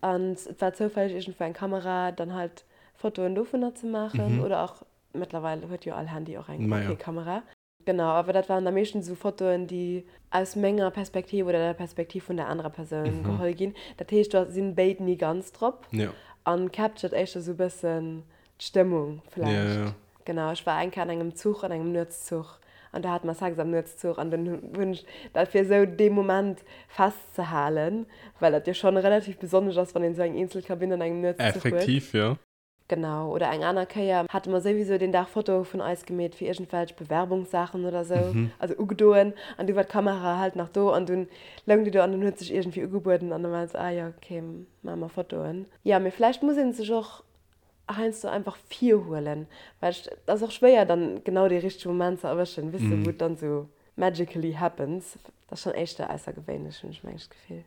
an et war zoufälleg iergendwou eng Kamera, dann halt Fotoen dovunner ze maachen oder och, mëttlerweil huet jo all Handy och eng ok Kamera. Genau, awer dat waren da meeschtens esou Fotoen, déi aus menger Perspektiv oder der Perspektiv vun der anerer Persoun geholl ginn. Dat heescht, do sinn béid ni ganz drop an captured éischter esou e bëssen d'Stëmmung vläicht. Genau, ech war eng Kéier an engem Zuch, an engem Nuetszuch an do hate mer Sex am Nuetszuch an dunn hunn ech dat fir esou dee Moment festzehalen, well dat jo schonn relativ besonnesch ass, wann een esou eng eenzel Kabinn an engem Nuetszuch huet. Effektiv, jo. Genau, oder eng aner Kéier hate mer souwisou deen Dag Fotoe vun eis gemeet fir iergendwelch Bewerbungssaachen oder sou, also ugedoen, an du war d'Kamera halt nach do an dunn loung déi do an dunn huet sech iergendwéi ugebueden an da war et sou, ah jo, ok, maache mer Fotoen. Jo, mee vläicht muss ee sech och heiansdo einfach virhuelen, well et ass och schwéier dann genau dee richtege Moment ze erwëschen, weess de, wou et dann sou magically happens. Dat ass schonn éischter aussergewéinlech, hunn ech mengen ech d'Gefill.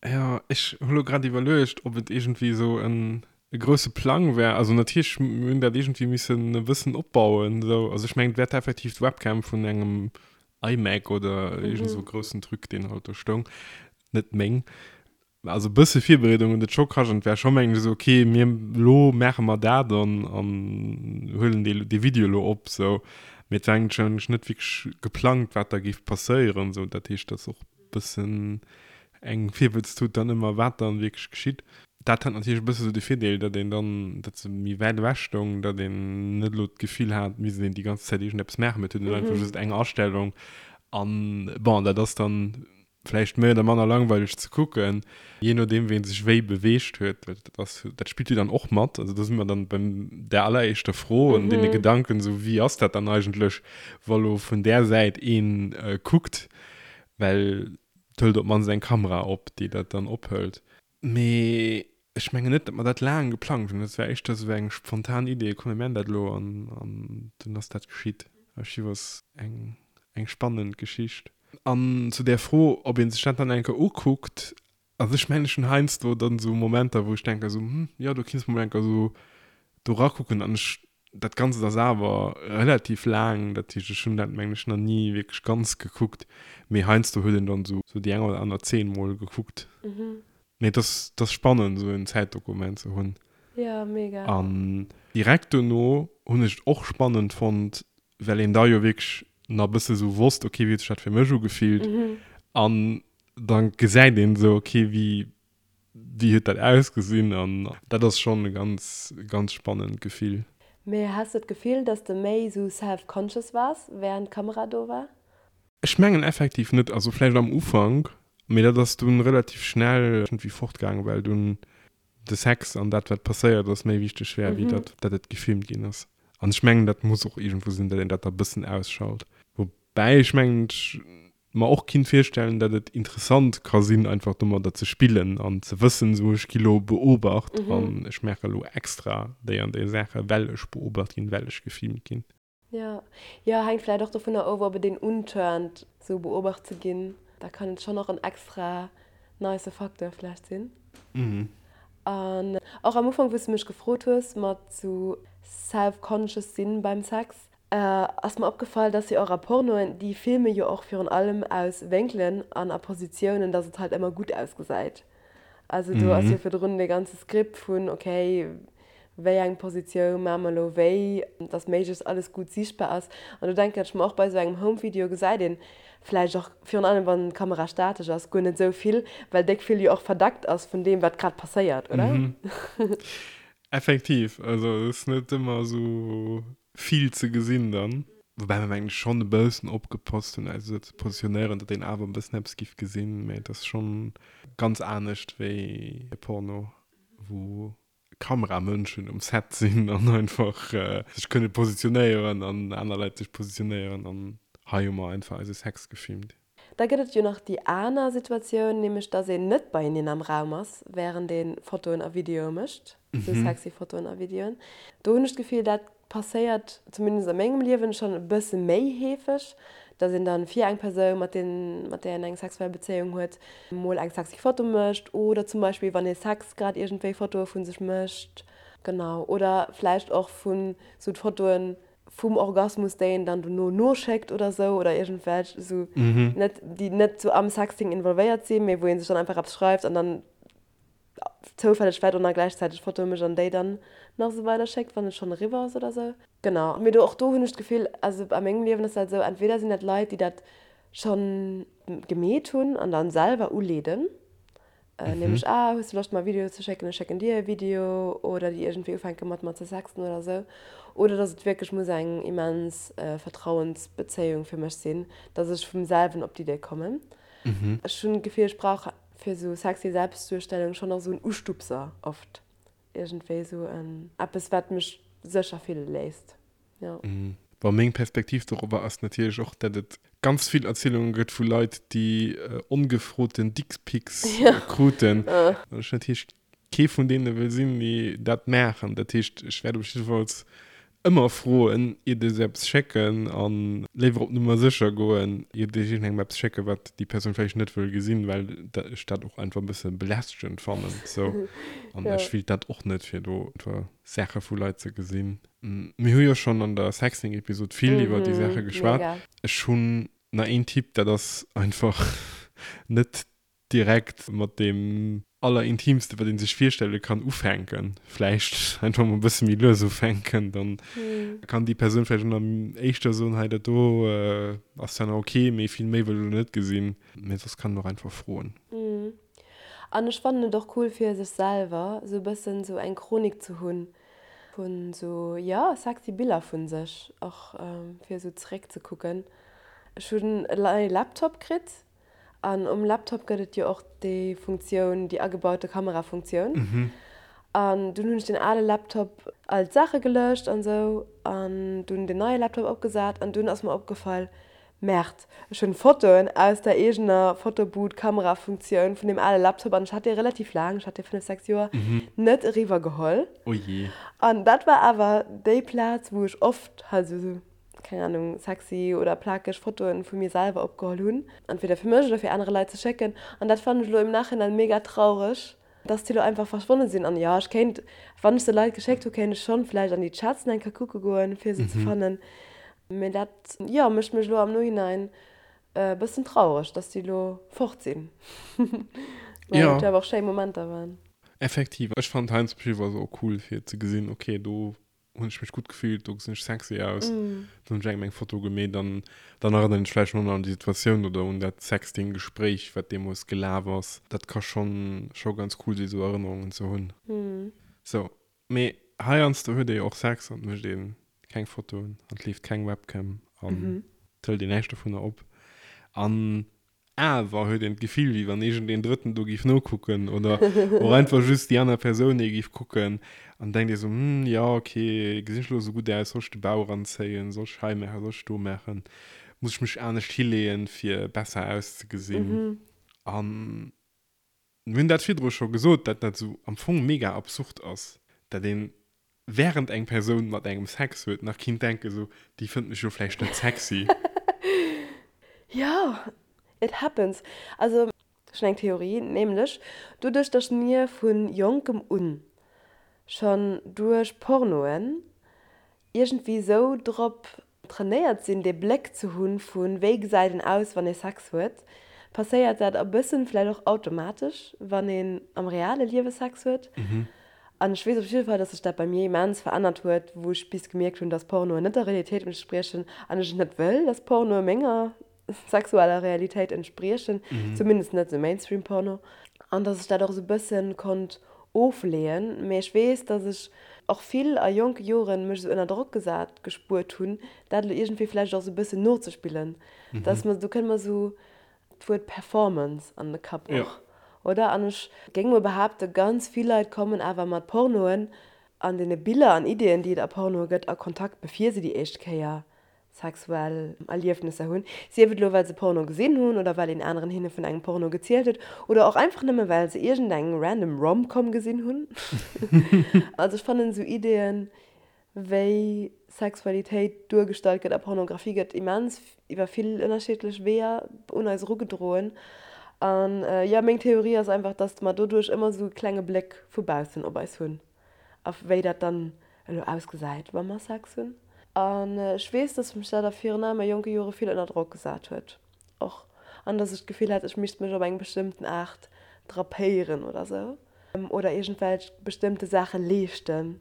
Jo, ech hu lo grad iwwerluecht, ob et iergendwéi esou en e grousse Plang wär. Also natierlech, mir hunn dat iergendwéi missen e bëssen opbauen esou. Also ech mengen, et wär effektiv d'Webcam vun engem iMac oder iergend esou e groussen Truc, deen halt do stoung, net meng. Also e bësse Virbereedung huet et scho kascht an et war scho mengen ech esou, okay, mir elo maache mer dat an an huelen dee dee Video elo op esou. Mee et war eigentlech net wierklech geplangt, wat da géif passéieren esou. Dat heescht, dat ass och bëssen eng Virwëtztut dann ëmmer, wat dann wierklech geschitt. Dat hat natierlech e bësse sou de Virdeel, datt een dann, datt se méi wäit ewech stoung, datt een net elo d'Gefill hat, et misst een déi ganz Zäit iergendeppes maachen, mee et huet een einfach just eng Astellung an bon, dat ass dann vläicht méi oder manner langweileg ze kucken, jee nodeem wéi ee sech wéi beweegt huet, well dat ass, dat spillt jo dann och mat. Also do si mer dann beim där alleréischter Fro an deene Gedanken, sou wéi ass dat dann eigentlech, wa lo vun där Säit een kuckt, Well et hëlt op d'mannst eng Kamera op, déi dat dann ophëlt. Mee ech mengen net, datt mer dat laang geplangt hunn. Dat war éischter esou eng spontan Idee, komm mir man dat elo an dunn ass dat geschitt. Archiv ass eng eng spannend Geschicht. An zu där Fro, ob ee sech dat dann eng Kéier ukuckt, also ech mengen ech hunn heiansdo dann esou Momenter, wou ech denken esou, hm, jo do kinns mol eng Kéier esou do rakucken an ech. Dat Ganzt ass awer relativ laang, dat heescht ech hunn dat mengen ech nach ni wierklech ganz gekuckt, mee heiansdo huet een dann esou déi eng oder aner Zeen mol gekuckt. Mee et ass, et ass spannend esou en Zäitdokument ze hunn. Jo, mega. An direkt dono hunn ech et och spannend fonnt, well een da jo wierklech nach e bësse sou wosst, ok, wéi huet sech dat fir mech ugefillt? An da gesäit een esou, ok, wéi, wéi huet dat ausgesinn? An dat ass schonn e ganz, ganz spannend Gefill. Mee has de d'Gefill, dass de méi sou self-conscious waars, wärend d'Kamera do war? Ech mengen effektiv net, also vläicht am Ufank, mee dat ass dunn relativ schnell iergendwéi fortgaangen, well dunn de Sex an dat wat passéiert ass méi wichteg wär wéi dat dat et gefilmt ginn ass. An ech mengen dat muss och iergendwou sinn, dat een dat da bëssen ausschalt. Woubäi ech mengen ech mer och kinnt virstellen, dat et interessant ka sinn einfach domadder ze spillen an ze wëssen esou ech gi lo beobacht an ech maache lo extra déi an déi Saache well ech beobacht ginn, well ech gefilmt ginn. Jo, jo, hänkt vläit och dovunner of, ob et een unturnt, sou beobacht ze ginn. Da kann et schonn och en extra nice Facteur vläicht sinn. An och am Ufank, wou s de mech gefrot hues mat sou self-conscious sinn beim Sex, ass mer opgefall, dass jo och a Pornoen, déi filme jo och virun allem aus Wénkelen an a Positiounen, dass et halt ëmmer gutt ausgesäit. Also do ass jo virdrun dee ganze Script vun, ok, wéi eng Positioun maache mer elo wéi, dass méiglechst alles gutt siichtbar ass. An do denken ech mer och, bei esou engem Home-Video gesäit een vläicht och, virun allem wann d'Kamera statesch ass, guer net esou vill, well déck vill jo och verdeckt ass vun deem, wat grad passéiert, oder? Effektiv, also et ass net ëmmer esou vill ze gesinn dann. Woubäi mer mengen ech schonn e bëssen opgepasst hunn eis esou ze positionéieren, datt een awer e bëssen eppes giff gesinn, mä et ass schonn ganz anescht wéi e Porno, wou Kameramënschen um Set sinn an einfach sech kënne positionéieren an aner Leit sech positionéieren an hei hu mer einfach eise Sex gefilmt. Da gëtt et jo nach déi aner Situatioun, nämlech dass een net beieneen am Raum ass, wärend ee Fotoen a Videoe mécht, esou sexy Fotoen a Videoen. Do hunn ech d'Gefill, dat passéiert, zumindest a mengem Liewen, schonn e bësse méi heefeg, dass een dann fir eng Persoun, mat deem, mat där een eng sexuell Bezéiung huet, mol eng sexy Foto mécht oder zum Beispill, wann ee Sex grad iergendwéi Fotoe vu sech mécht, genau, oder vläicht och vun esou d'Fotoen, vum Orgasmus, déi een dann dono noschéckt oder sou oder iergendwelch sou net, déi net sou am Sexting involvéiert sinn, mee wou ee sech dann einfach eppes schreift an dann zoufälleg vläicht och nach gläichzäiteg Fotoe mécht an déi dann nach sou weider schéckt, wann et schonn eriwwer ass oder sou. Genau. Mee do, och do hunn ech d'Gefill, also a mengem Liewen ass dat esou, entweder sinn dat Leit, déi dat schonn gemeet hunn an dann selwer uleeden, Nämlech, ah, hues de Loscht mer e Video ze schécken, ech schécken dir e Video, oder déi iergendwéi ufänke mat mer ze sexten oder esou. Oder dass et wierklech muss eng immens Vertrauensbezéiung fir mech sinn, dass ech vum selwen op d'Idee kommen. Ech hunn d'Gefill, ech brauch fir esou sexy Selbstduerstellung schonn och esou en Ustupser oft, iergendwéi esou en eppes, wat mech sécher fille léisst. Jo. Bon, meng Perspektiv dorobber ass natierlech och, dat et ganz vill Erzielunge gëtt vu Leit, déi ongefroten Dickpics kruten. An ech natierlech kee vun deene wëll sinn, déi dat maachen. Dat heescht, ech wäert op jiddefalls ëmmer froen, iert ech eppes schécken a léiwer op Nummer sécher goen, iert ech iergendengem eppes schécken, wat déi Persoun vläicht net wëll gesinn, well ech dat och einfach e bësse belästegend fannen. Sou. An ech wéilt dat och net, fir do Saache vu Leit ze gesinn. Mir hu jo schonn an der Sexting-Episod vill iwwer déi Saache geschwat. Ech hunn nach een Tipp, dat ass einfach net direkt mat deem Allerintiimste, wat ee sech virstelle kann, ufänken. Vläicht einfach mol e bësse méi lues ufänken, dann kann déi Persoun vläicht och nach éischter soen, hei dat do ass zwar nach ok, mee vill méi wëll ech elo net gesinn. Mee soss kann een och einfach froen. An ech fannen et och cool fir sech selwer sou e bëssen sou eng Chronik ze hunn vun sou, jo, sexy Biller vun sech och fir sou zeréck ze kucken. Ech hunn e neie Laptop kritt an um Laptop gëtt et jo och déi Funktioun, déi agebaute Kamerafunktioun. An dunn hunn ech den ale Laptop all d'Saache gelöscht an sou an dunn den neie Laptop opgesat an dunn ass mer opgefall, Merde, ech hunn Fotoen aus der eegener Fotobooth-Kamerafunktioun vun deem ale Laptop an ech hat dee relativ laang, ech hat dee 5, 6 Joer, net eriwwer geholl. Oh jee. An dat war awer déi Plaz, wou ech oft halt esou, keng Ahnung, sexy oder plakeg Fotoen vu mir selwer opgeholl hunn, entweder fir mech oder fir anere Leit ze schécken. An dat fannen ech elo im Nachhinein mega traureg. Dass déi lo einfach verschwonne sinn. An jo, ech kéint, wann ech se Leit geschéckt hu, kéint ech schonn vläicht an déi Chats eng Kéier kucke goen, fir se ze fannen. Mee dat, jo, mécht mech elo am Nohinein e bëssen traureg, dass déi elo fort sinn. Well et jo awer och schéi Momenter waren. Effektiv. Ech fannen heiansdo op jidde Fall se och cool, fir ze gesinn, okay, do hunn ech mech gutt gefillt, do gesinn ech sexy aus, dann hunn ech engem eng Foto gemeet an dann erënneren ech vläicht nach un déi Situatioun oder un dat Sexting-Gespréich, wat deemools gelaf ass. Dat ka schonn scho ganz cool sinn, esou Erënnerungen ze hunn. Sou, mee heiansdo huet ee jo och Sex an et mécht ee keng Fotoen an et leeft keng Webcam an et hëlt een näischt dovunner op an Awer huet een d'Gefill, wéi wann iergendeen Drëtten do géif nokucken oder och einfach just déi aner Persoun ee géif kucken an denkt ee sou, Hm, jo, ok, gesinn ech elo esou gutt aus? Soll ech de Bauch eranzéien? Soll ech hei maachen? Soll ech do maachen? Muss ech mech anescht hileeën, fir besser auszegesinn? An Mir hunn dat virdru scho gesot, dat dat esou am Fong mega absurd ass, dat een während eng Persoun mat engem Sex huet nach kinnt denken esou, déi fënnt mech jo vläicht net sexy. Jo, it happens. Also ech hunn eng Theorie, nämlech doduerch datt mir vu jonkem un schonn duerch Pornoen iergendwéi esou drop trainéiert sinn, dee Bléck ze hunn vu wéi gesäit een aus, wann ee Sex huet, passéiert dat e bëssen vläicht och automatesch, wann een am reale Liewe Sex huet. An ech weess op jidde Fall, dass sech dat bei mir immens verännert huet, wou ech bis gemierkt hunn, dass Pornoen net der Realitéit entspriechen an ech et net wëll, dass Pornoe menger sexueller Realitéit entspriechen, zumindest net esou Mainstream-Porno, an dass ech dat och esou bëssen konnt ofleeën. Mee ech weess, dass ech och vill a jonke Joren mech esou ënner Drock gesat gespuert hunn, dat elo iergendwéi vläicht och esou bëssen nozespillen, dass mer, do kënnt mer esou d'Wuert Performance an de Kapp och, oder? An ech géing mol behaapten, ganz vill Leit kommen awer mat Pornoen an deene Biller an Ideeën, déi et a Pornoe gëtt, a Kontakt, bevir se déi éischt Kéier sexuell Erliefnesser hunn, sief et elo well se Porno gesinn hunn oder well een aneren hinne vun engem Porno gezielt huet oder och einfach nëmme well se iergendeng random Rom-Com gesinn hunn. Also ech fannen esou Ideeën wéi Sexualitéit duergestallt gëtt a Pornografie gëtt immens iwwer vill ënnerschiddlech Weeër un eis erugedroen. An jo, meng Theorie ass einfach, dass mer doduerch ëmmer esou e klenge Bléck vu baussen op eis hunn. A wéi dat dann elo ausgesäit, wa mer Sex hunn. An ech weess, dass mech dat a virun allem a jonke Jore vill ënner Drock gesat huet och. An dass ech d'Gefill hat, ech misst mech op eng bestëmmten Aart drapéieren oder sou. Oder iergendwelch bestëmmte Saache leeschten.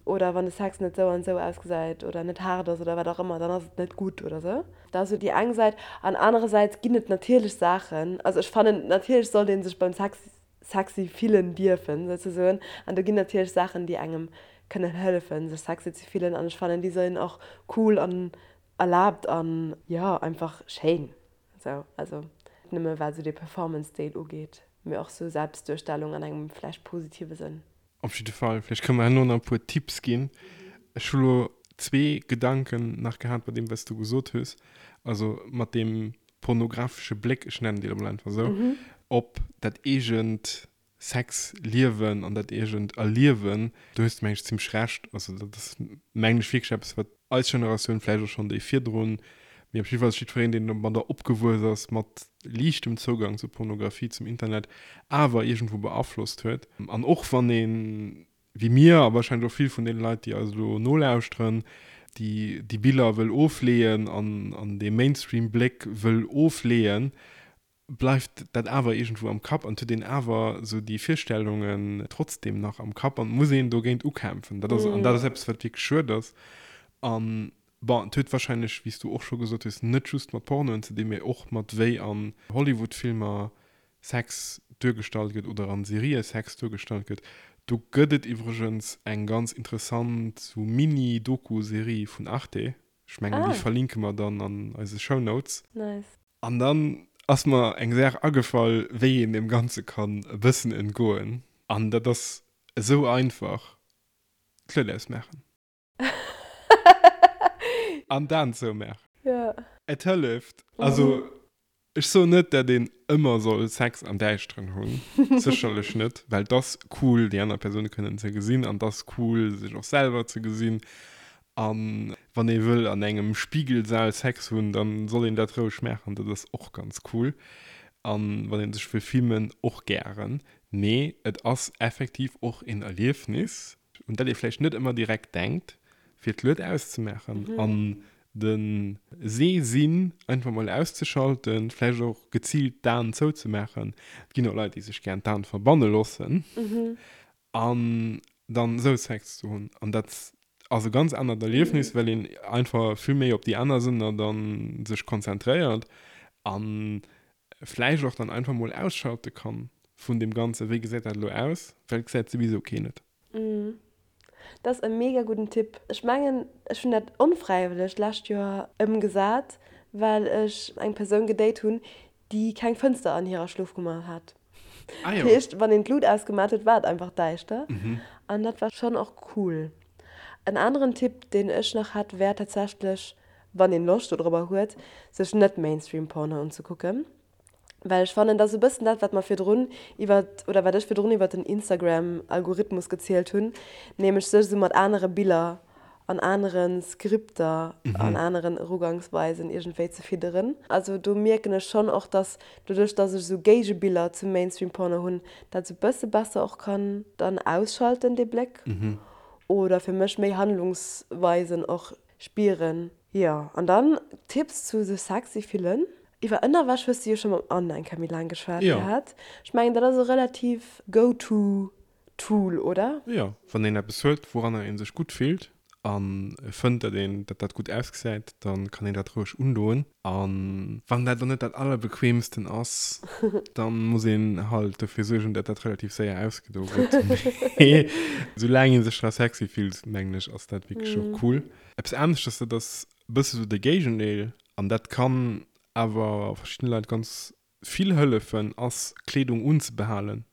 Oder wann de Sex net sou an sou ausgesäit oder net haart ass oder wat och ëmmer, dann ass et net gutt oder sou. Dat ass sou déi eng Säit. An anerersäits ginn et natierlech Saachen, also ech fannen, natierlech sollt ee sech beim Sex sexy fillen dierfen, souzesoen. An do ginn natierlech Saachen, déi engem kënnen hëllefen, sech sexy ze fillen. An ech fannen, déi sinn och cool an erlaabt an, jo, einfach schéin. Sou, also net nëmme wat esou dee Performance-Deel ugeet, mee och sou Selbstduerstellung an engem vläicht positive Sënn. Op jidde Fall, vläicht kënne mer herno nach e puer Tipps ginn. Ech hu lo zwee Gedanken nach gehat bei deem, wat s du gesot hues. Also mat deem pornografesche Bléck, ech nennen dee lo mol einfach esou, op dat eegent Sexliewen an dat eegent Erliewen. Do hues de, meng ech, zimmlech Recht. Also dat ass, mengen ech, wierklech eppes, wat eis Generatioun, vläicht och schonn déi virdrun, mee op jidde Fall jiddwereen, deen domadder opgewuess ass, mat liichtem Zougang zur Pornografie, zum Internet, awer iergendwou beaflosst huet. An och wann een, wéi mir a warscheinlech och vill vun deene Leit, déi eis elo nolauschteren, déi déi Biller wëll ofleeën an an dee Mainstream-Bléck wëll ofleeën, bleift dat awer iergendwou am Kapp an et huet een awer esou déi Virstellungen trotzdem nach am Kapp an et muss een dogéint ukämpfen. Dat ass, an dat ass eppes, wat wierklech schued ass. An bon, et huet warscheinlech, wéi s du och scho gesot hues, net just mat Pornoen ze dinn, mee och mat wéi an Hollywood-Filmer Sex duergestallt gëtt oder an Serië Sex duergestallt gëtt. Do gëtt et iwwregens eng ganz interessant sou Mini-Doku-Serie vun Arte. Ech mengen, déi verlinke mer dann an eise Shownotes. Nice. An dann ass mer eng Saach agefall, wéi een deem Ganze kann e bëssen entgoen. An dat ass esou einfach, d'Lued ausmaachen. An d'Aen zoumaachen. Ja. Et hëlleft. Also, ech soen net, dat een ëmmer soll Sex am Däischteren hunn. Sécherlech net, well 't ass cool, déi aner Persoun kënnen ze gesinn an 't ass cool, sech och selwer ze gesinn. A wann ee wëll an engem Spigelsaal Sex hunn, da soll een dat roueg maachen, dat ass och ganz cool. A wann ee sech wëll filmen, och gären. Mee et ass effektiv och een Erliefnis, un dat ee vläicht net ëmmer direkt denkt, fir d'Lued auszemaachen an de Sehsinn einfach mol auszeschalten, vläicht och geziilt d'Aen zouzemaachen. Et ginn och Leit, déi sech gären d'Aen verbanne loossen an dann esou Sex ze hunn. An dat ass e ganz anert Erliefnis, well een einfach vill méi op déi aner Sënner dann sech konzentréiert an vläicht och dann einfach mol ausschalte kann vun deem Ganzen, wéi gesäit dat elo aus, well et gesäit souwisou keen et. Dat ass e mega gudden Tipp. Ech mengen, ech hunn dat onfräiwëlleg d'lescht Joer ëmgesat, well ech eng Persoun gedate hunn, déi keng Fënster an hirer Schlofkummer hat. Ah jo. Dat heescht, wann een d'Lut ausgemat huet, war et einfach däischter. An dat war schonn och cool. En aneren Tipp, deen ech nach hätt, wär tatsächlech, wann een Loscht dodrobber huet, sech net Mainstream Porno unzekucken, well ech fannen, dat ass e bëssen dat, wat mer virdrun iwwer, oder wat ech virdrun iwwer den Instagram Algorithmus gezielt hunn, nämlech sech esou mat anere Biller an anere Skripter an aneren Erugangsweisen iergendwéi ze fidderen. Also do mierken ech schonn och, dass doduerch, dass ech esou Géigebiller zum Mainstream Porno hunn, dat esou bësse besser och kann dann ausschalten, dee Bléck, oder fir mech méi Handlungsweisen och Spieren. Jo, an dann Tipps zu sech sexy fillen. Iwwer Ënnerwäsch hues de jo scho mam Anne eng Kéier méi laang geschwat gehat. Ech mengen dat ass e relativ go to Tool, oder? Jo, wann een eppes huet wouranner een sech gutt fillt a fënnt dat een dat dat gutt ausgesäit, dann kann een dat roueg undoen. A wann dat elo net dat allerbequeemsten ass, dann muss een halt dofir suergen dat dat relativ séier ausgedo gëtt. Mee soulaang een sech dra sexy fillt, mengen ech, ass dat wierklech och cool. Eppes aneschters, dat ass e bësse sou de Géigendeel an dat kann awer verschiddene Leit ganz vill hëllefen, ass Kleedung unzebehalen.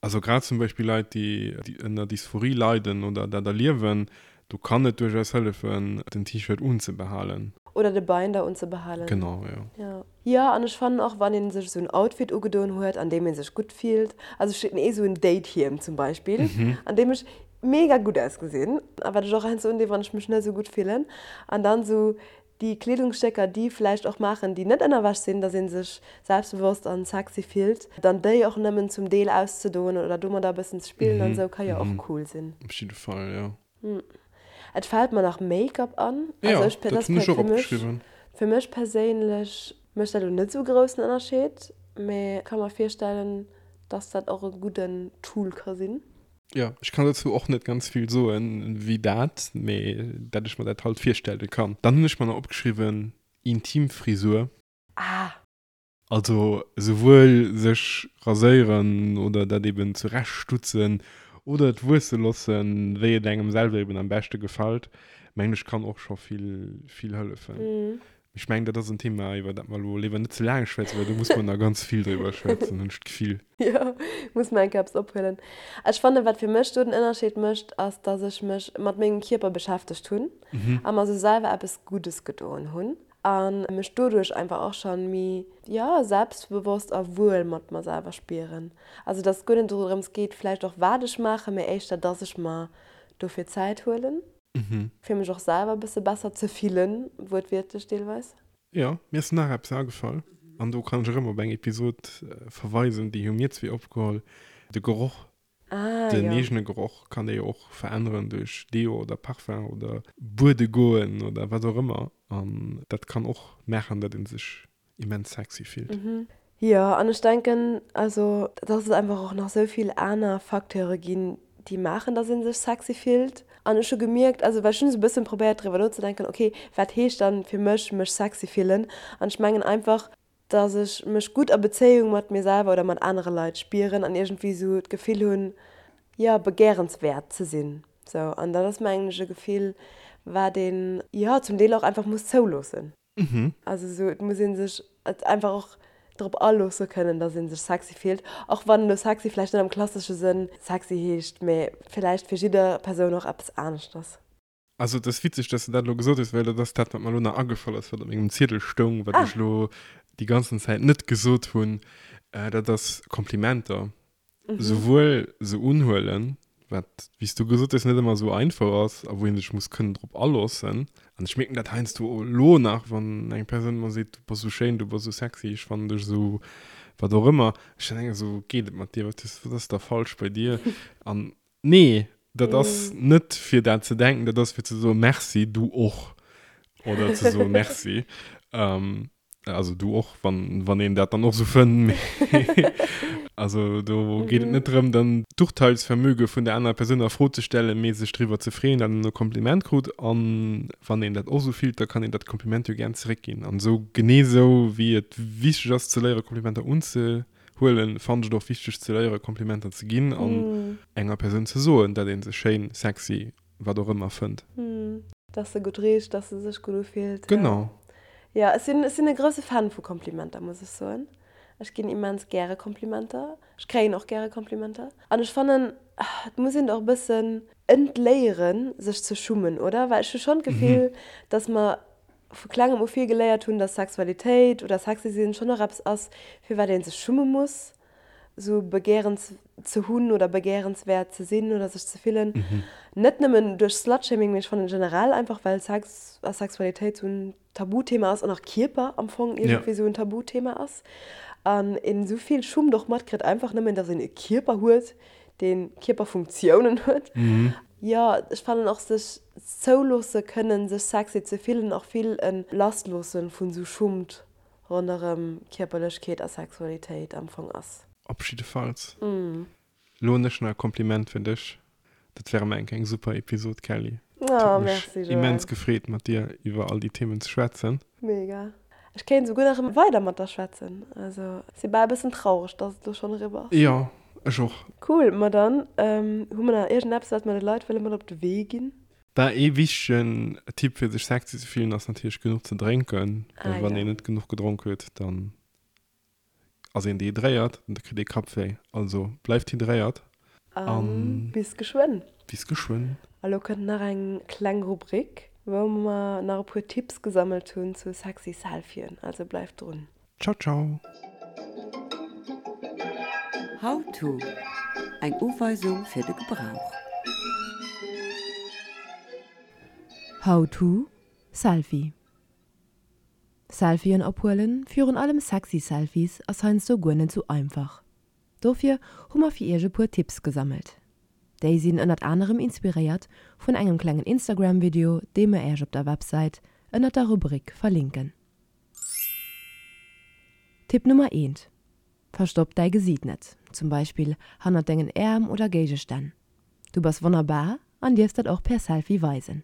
Also grad zum Beispill Leit, déi ënner Dysphorie leiden oder dat erliewen, do kann et duerchaus hëllefen, den T-Shirt unzebehalen. Oder de Binder unzebehalen. Genau, jo. Jo. Jo, an ech fannen och, wann ee sech esou en Outfit ugedoen huet, an deem ee sech gutt fillt, also ech hunn ee sou en Date-Hiem zum Beispill, an deem ech mega gutt ausgesinn, a wat ech och heiansdo undinn, wann ech mech net esou gutt fillen, an dann esou déi Kleedungsstécker, déi vläicht och maachen, déi net Ënnerwäsch sinn, dass ee sech selbstbewosst an sexy fillt, dann déi och nëmmen zum Deel auszedoen oder domadder e bëssen ze spillen an esou, ka jo och cool sinn. Op jidde Fall, jo. Et fält mer nach Make-up an. Jo, dat hunn ech och opgeschriwwen. Fir mech perséinlech mécht dat elo net esou e groussen Ënnerscheed, mee ka mer virstellen, dass dat och e gudden Tool ka sinn. Jo, ech kann dozou och net ganz vill soen wéi dat, mee dat ech mer dat halt virstelle kann. Dann hunn ech mer nach opgeschriwwen, Intimfrisur. Ah! Also souwuel sech raséieren oder dat eben zurechtstutzen oder et wuesse lossen, wéi et engem selwer eben am beschte gefällt, mengen ech kann och scho vill, vill hëllefen. Ech mengen, dat ass en Thema, iwwer dat mer elo léiwer net ze laang schwätzen, well do muss mer nach ganz vill driwwer schwätzen, hunn ech d'Gefill. Jo, muss mer eng Kéier eppes ophuelen. Ech fannen, wat fir mech do den Ënnerscheed mécht, ass, dass ech mech mat mengem Kierper beschäftegt hunn a mer sou selwer eppes Guddes gedoen hunn a mech doduerch einfach och schonn méi, jo, selbstbewosst a wuel mat mer selwer spieren. Also, dass et guer net dorëms geet vläicht och, wat ech maachen, mee éischter, dass ech mer dofir Zäit huelen. Fir mech och selwer e bësse besser ze fillen, wuertwiertlech deelweis. Jo, mir ass nach eppes agefall, an do kann ech erëm op eng Episod verweisen, déi hu mir zwee opgeholl, de Geroch. Ah, Den jo. eegene Geroch kann ee jo och veränneren duerch Deo oder Parfum oder buede goen oder wat och ëmmer, an dat kann och maachen, datt ee sech immens sexy fillt. Jo, an ech denken, also, dass et einfach och nach esou vill aner Facteure ginn, déi maachen, dass ee sech sexy fillt. An ech hu gemierkt, also well ech hunn esou e bëssen probéiert driwwer nozedenken, okay, wat heescht dann fir mech, mech sexy fillen? An ech mengen einfach, dass ech mech gutt a Bezéiung mat mir selwer oder mat anere Leit spieren an iergendwéi esou d'Gefill hunn, jo, begäerenswäert ze sinn. Sou, an dat ass mengen ech e Gefill, wat een, jo, zum Deel och einfach muss zouloossen. Also esou, et muss ee sech et einfach och drop aloosse kënnen, datt ee sech sexy fillt, och wann elo sexy vläicht net am klassesche Sënn sexy heescht, mä villäicht fir jidder Persoun och eppes aneschters. Also et ass witzeg, dass de dat elo gesot hues, well dat ass dat, wat mer elo nach agefall ass, wat op mengem Ziedel stoung, wat ech elo déi ganzen Zäit net gesot hunn, dat ass Komplimenter. Souwuel se unhuelen, wat, wéi s du gesot hues, net ëmmer esou einfach ass a wou ee sech muss kënnen drop aloossen. An ech mierken dat heiansdo elo nach, wann eng Persoun mer seet, du bass esou schéin, du bass esou sexy, ech fannen dech esou. Wat och ëmmer. Ech dann denken esou, geet et mat dir? Wat ass, wat ass da falsch bei dir? An nee, dat ass net fir dat ze denken, dat ass fir ze soen, Merci, du och. Oder ze soen, Merci. Also du och, wann, wann een dat dann och esou fënnt. Mee also do geet et net drëm, dann d'Urteilsvermöge vun der anerer Persoun a Fro ze stellen, mee sech driwwer ze freeën, datt een e Kompliment krut. An wann een dat och esou fillt, da kann een dat Kompliment jo gären zeréckginn. An esou genee esou wéi et wichteg ass ze léiere Komplimenter unzehuelen, fannen ech et och wichteg ze léiere Komplimenter ze ginn an enger Persoun ze soen, datt ee se schéin, sexy, wat och ëmmer fënnt. Dass se gutt richt, dass se sech gutt ufillt. Genau. Jo, ech sinn, ech sinn e grousse Fan vu Komplimenter, muss ech soen. Ech ginn immens gäre Komplimenter. Ech kréien och gäre Komplimenter. An ech fannen, et muss een och e bëssen entléieren, sech ze schummen, oder? Well ech hu schonn d'Gefill, dass mer vu klengem u vill geléiert hunn, dass Sexualitéit oder sexy sinn schonn och eppes ass, fir wat ee sech schumme muss. sou begehrens ze hunn oder begehrenswäert ze sinn oder sech ze fillen. Net nëmmen duerch Slutshaming, mee ech fannen generell einfach well Sex a Sexualitéit sou en Tabuthema ass an och Kierper am Fong iergendwéi sou en Tabuthema ass an een sou vill Schummt och matkritt einfach nëmmen dass een e Kierper huet, dee Kierperfunktiounen huet. Jo, ech fannen och sech zouloosse kënnen sech sexy ze fillen och vill e Lassloosse vun sou Schummt ronderëm Kierperlechkeet a Sexualitéit am Fong ass. Op jiddefalls. Lo hunn ech nach e Kompliment fir dech. Dat war erëm eng eng super Episod, Kelly. Et huet mech immens gefreet mat dir iwwer all déi Themen ze schwätzen. Mega. Ech kéint esouguer nach weider mat der schwätzen. Also si bal e bëssen traureg, dass et elo schonn eriwwer ass. Jo, ech och. Cool, ma dann hu mer nach iergendeppes wat mer de Leit wëlle mat op de Wee ginn? Bah, ee wichtegen Tipp fir sech sexy ze fillen ass natierlech genuch ze drénken, well wann een net genuch gedronk huet, dann ass een dehydréiert an da kritt ee Kappwéi. Also bleift hydréiert a bis geschwënn. Bis geschwënn. A lo kënnt nach eng kleng Rubrik, wou mer nach e puer Tipps gesammelt hunn zu sexy Selfien, also bleift drun. Ciao ciao. How to, Eng Uweisung fir de Gebrauch. How to, Selfie Selfien ophuelen, virun allem sexy Selfies, ass heiansdo guer net sou einfach. Dofir hu mer fir iech e puer Tipps gesammelt. Déi sinn ënnert anerem inspiréiert vun engem klengen Instagram Video, dee mer iech op der Websäit ënnert der Rubrik verlinken. Tipp Nummer eent, Verstopp däi Gesiit net, zum Beispill hannert dengen Äerm oder Géigestänn. Du bass wonnerbar an dierfs dat och per Selfie weisen.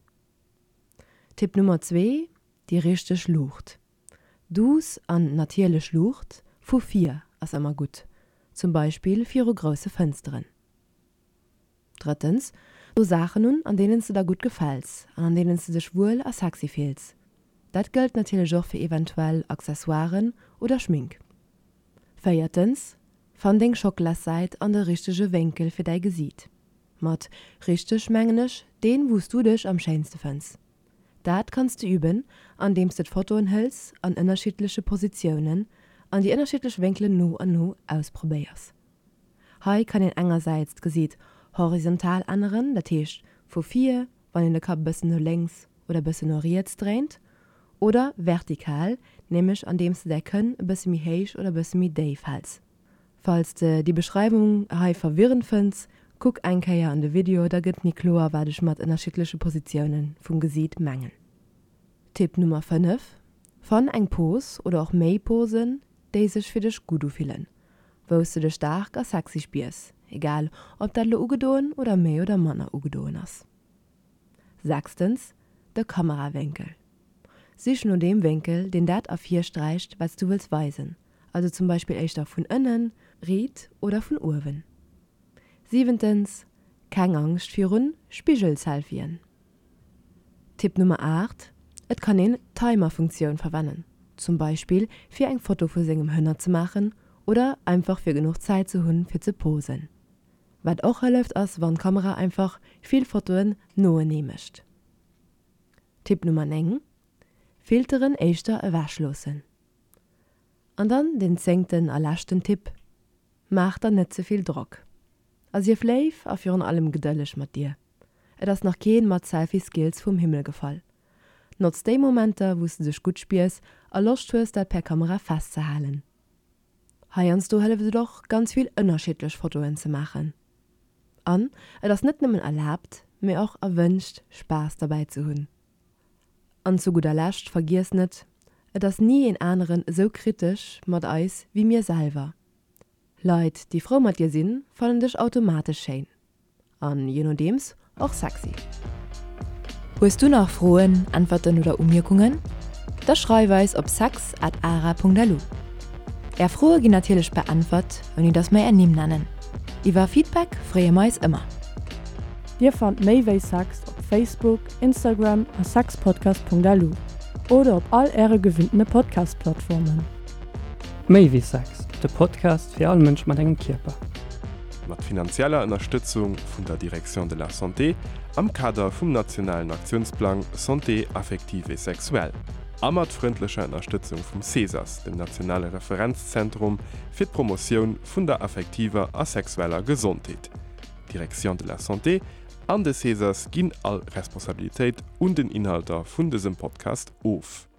Tipp Nummer zwee, Déi richteg Luucht. Duuss an natierlech Luucht vu vir ass ëmmer gutt, zum Beispill viru grousse Fënsteren. Drëttens, Do Saachen un, an deenen s de der gutt gefäls an an deenen s de dech wuel a sexy fills. Dat gëllt natierlech och fir eventuell Accessoiren oder Schmink. Véiertens, Fann deng Schockelassäit an de richtege Wénkel fir däi Gesiit. Mat richteg mengen ech deen, wou s du dech am schéinste fënns. Dat kanns de üben, andeems de d'Fotoen hëls an ënnerschiddleche Positiounen an déi ënnerschiddlech Wénkelen no an no ausprobéiers. Hei kann een engersäits d'Gesiit horizontal änneren, dat heescht vu vir, wann een de Kapp e bëssen no lénks oder e bëssen no riets dréint, oder vertikal, nämlech andeems de däi Kënn e bësse méi héich oder e bësse méi déif häls. Falls de déi Beschreiwung hei verwirrend fënns, kuck eng Kéier an de Video, da gëtt méi kloer wat ech mat ënnerschiddleche Positioune vum Gesiit mengen. Tipp Nummer 5, Fann eng Pose oder och méi Posen, déi sech fir dech gutt ufillen, wou s de dech staark a sexy spiers, egal ob dat elo ugedoen oder méi oder manner ugedoen ass. Sechstens, de Kamerawénkel. Sich no deem Wénkel, deen dat ervirsträicht, wat s du wëlls weisen, also zum Beispill éischter vun ënnen, riit oder vun uewen. Siwentens, keng Angscht virun Spigel-Selfien. Tipp Nummer 8, Et kann een d'Timer-Funktioun verwennen, zum Beispill fir eng Foto vu sengem Hënner ze maachen oder einfach fir genuch Zäit ze hunn fir ze posen. Wat och hëlleft ass wann d'Kamera einfach vill Fotoen noenee mécht. Tipp Nummer 9, Filteren éischter ewech loossen. An dann den zéngten a leschten Tipp, Maach der net ze vill Drock a sief léif a virun allem gedëlleg mat dir. Et ass nach keen mat Selfie Skills vum Himmel gefall. Notz déi Momenter wous de dech gutt spiers a Loscht hues dat per Kamera festzehalen. Heiansdo hëlleft et och, ganz vill ënnerschiddlech Fotoen ze maachen. An et ass net nëmmen erlaabt, mee och erwënscht, Spaass derbäi ze hunn. An zu gudder Lescht, vergiess net, et ass ni een aneren esou kritesch mat eis wéi mir selwer. Leit, déi frou mat dir sinn, fannen dech automatesch schéin. An je nodeems och sexy. Hues du nach Froen, Äntwerten oder Umierkungen? Da schreif eis op sex at ara.lu. Är Froe ginn natierlech beäntwert, ouni dass mer är Nimm nennen. Iwwer Feedback freeë mer eis ëmmer. Dir fannt méi wéi Sex op Facebook, Instagram a sexpodcast.lu oder op all äre gewinntene Podcast-Plattformen. Méi wéi Sex, de Podcast fir all Mënsch mat engem Kierper. Mat finanzieller Ënnerstëtzung vun der Direction de la Santé am Kader vum nationalen Aktiounsplang Santé affective et sexuelle a mat frëndlecher Ënnerstëtzung vum CESAS, dem nationale Referenzzentrum fir d'Promotioun vun der affektiver a sexueller Gesondheet. D'Direction de la Santé an de CESAS ginn all Responsabilitéit un den Inhalter vun dësem Podcast of.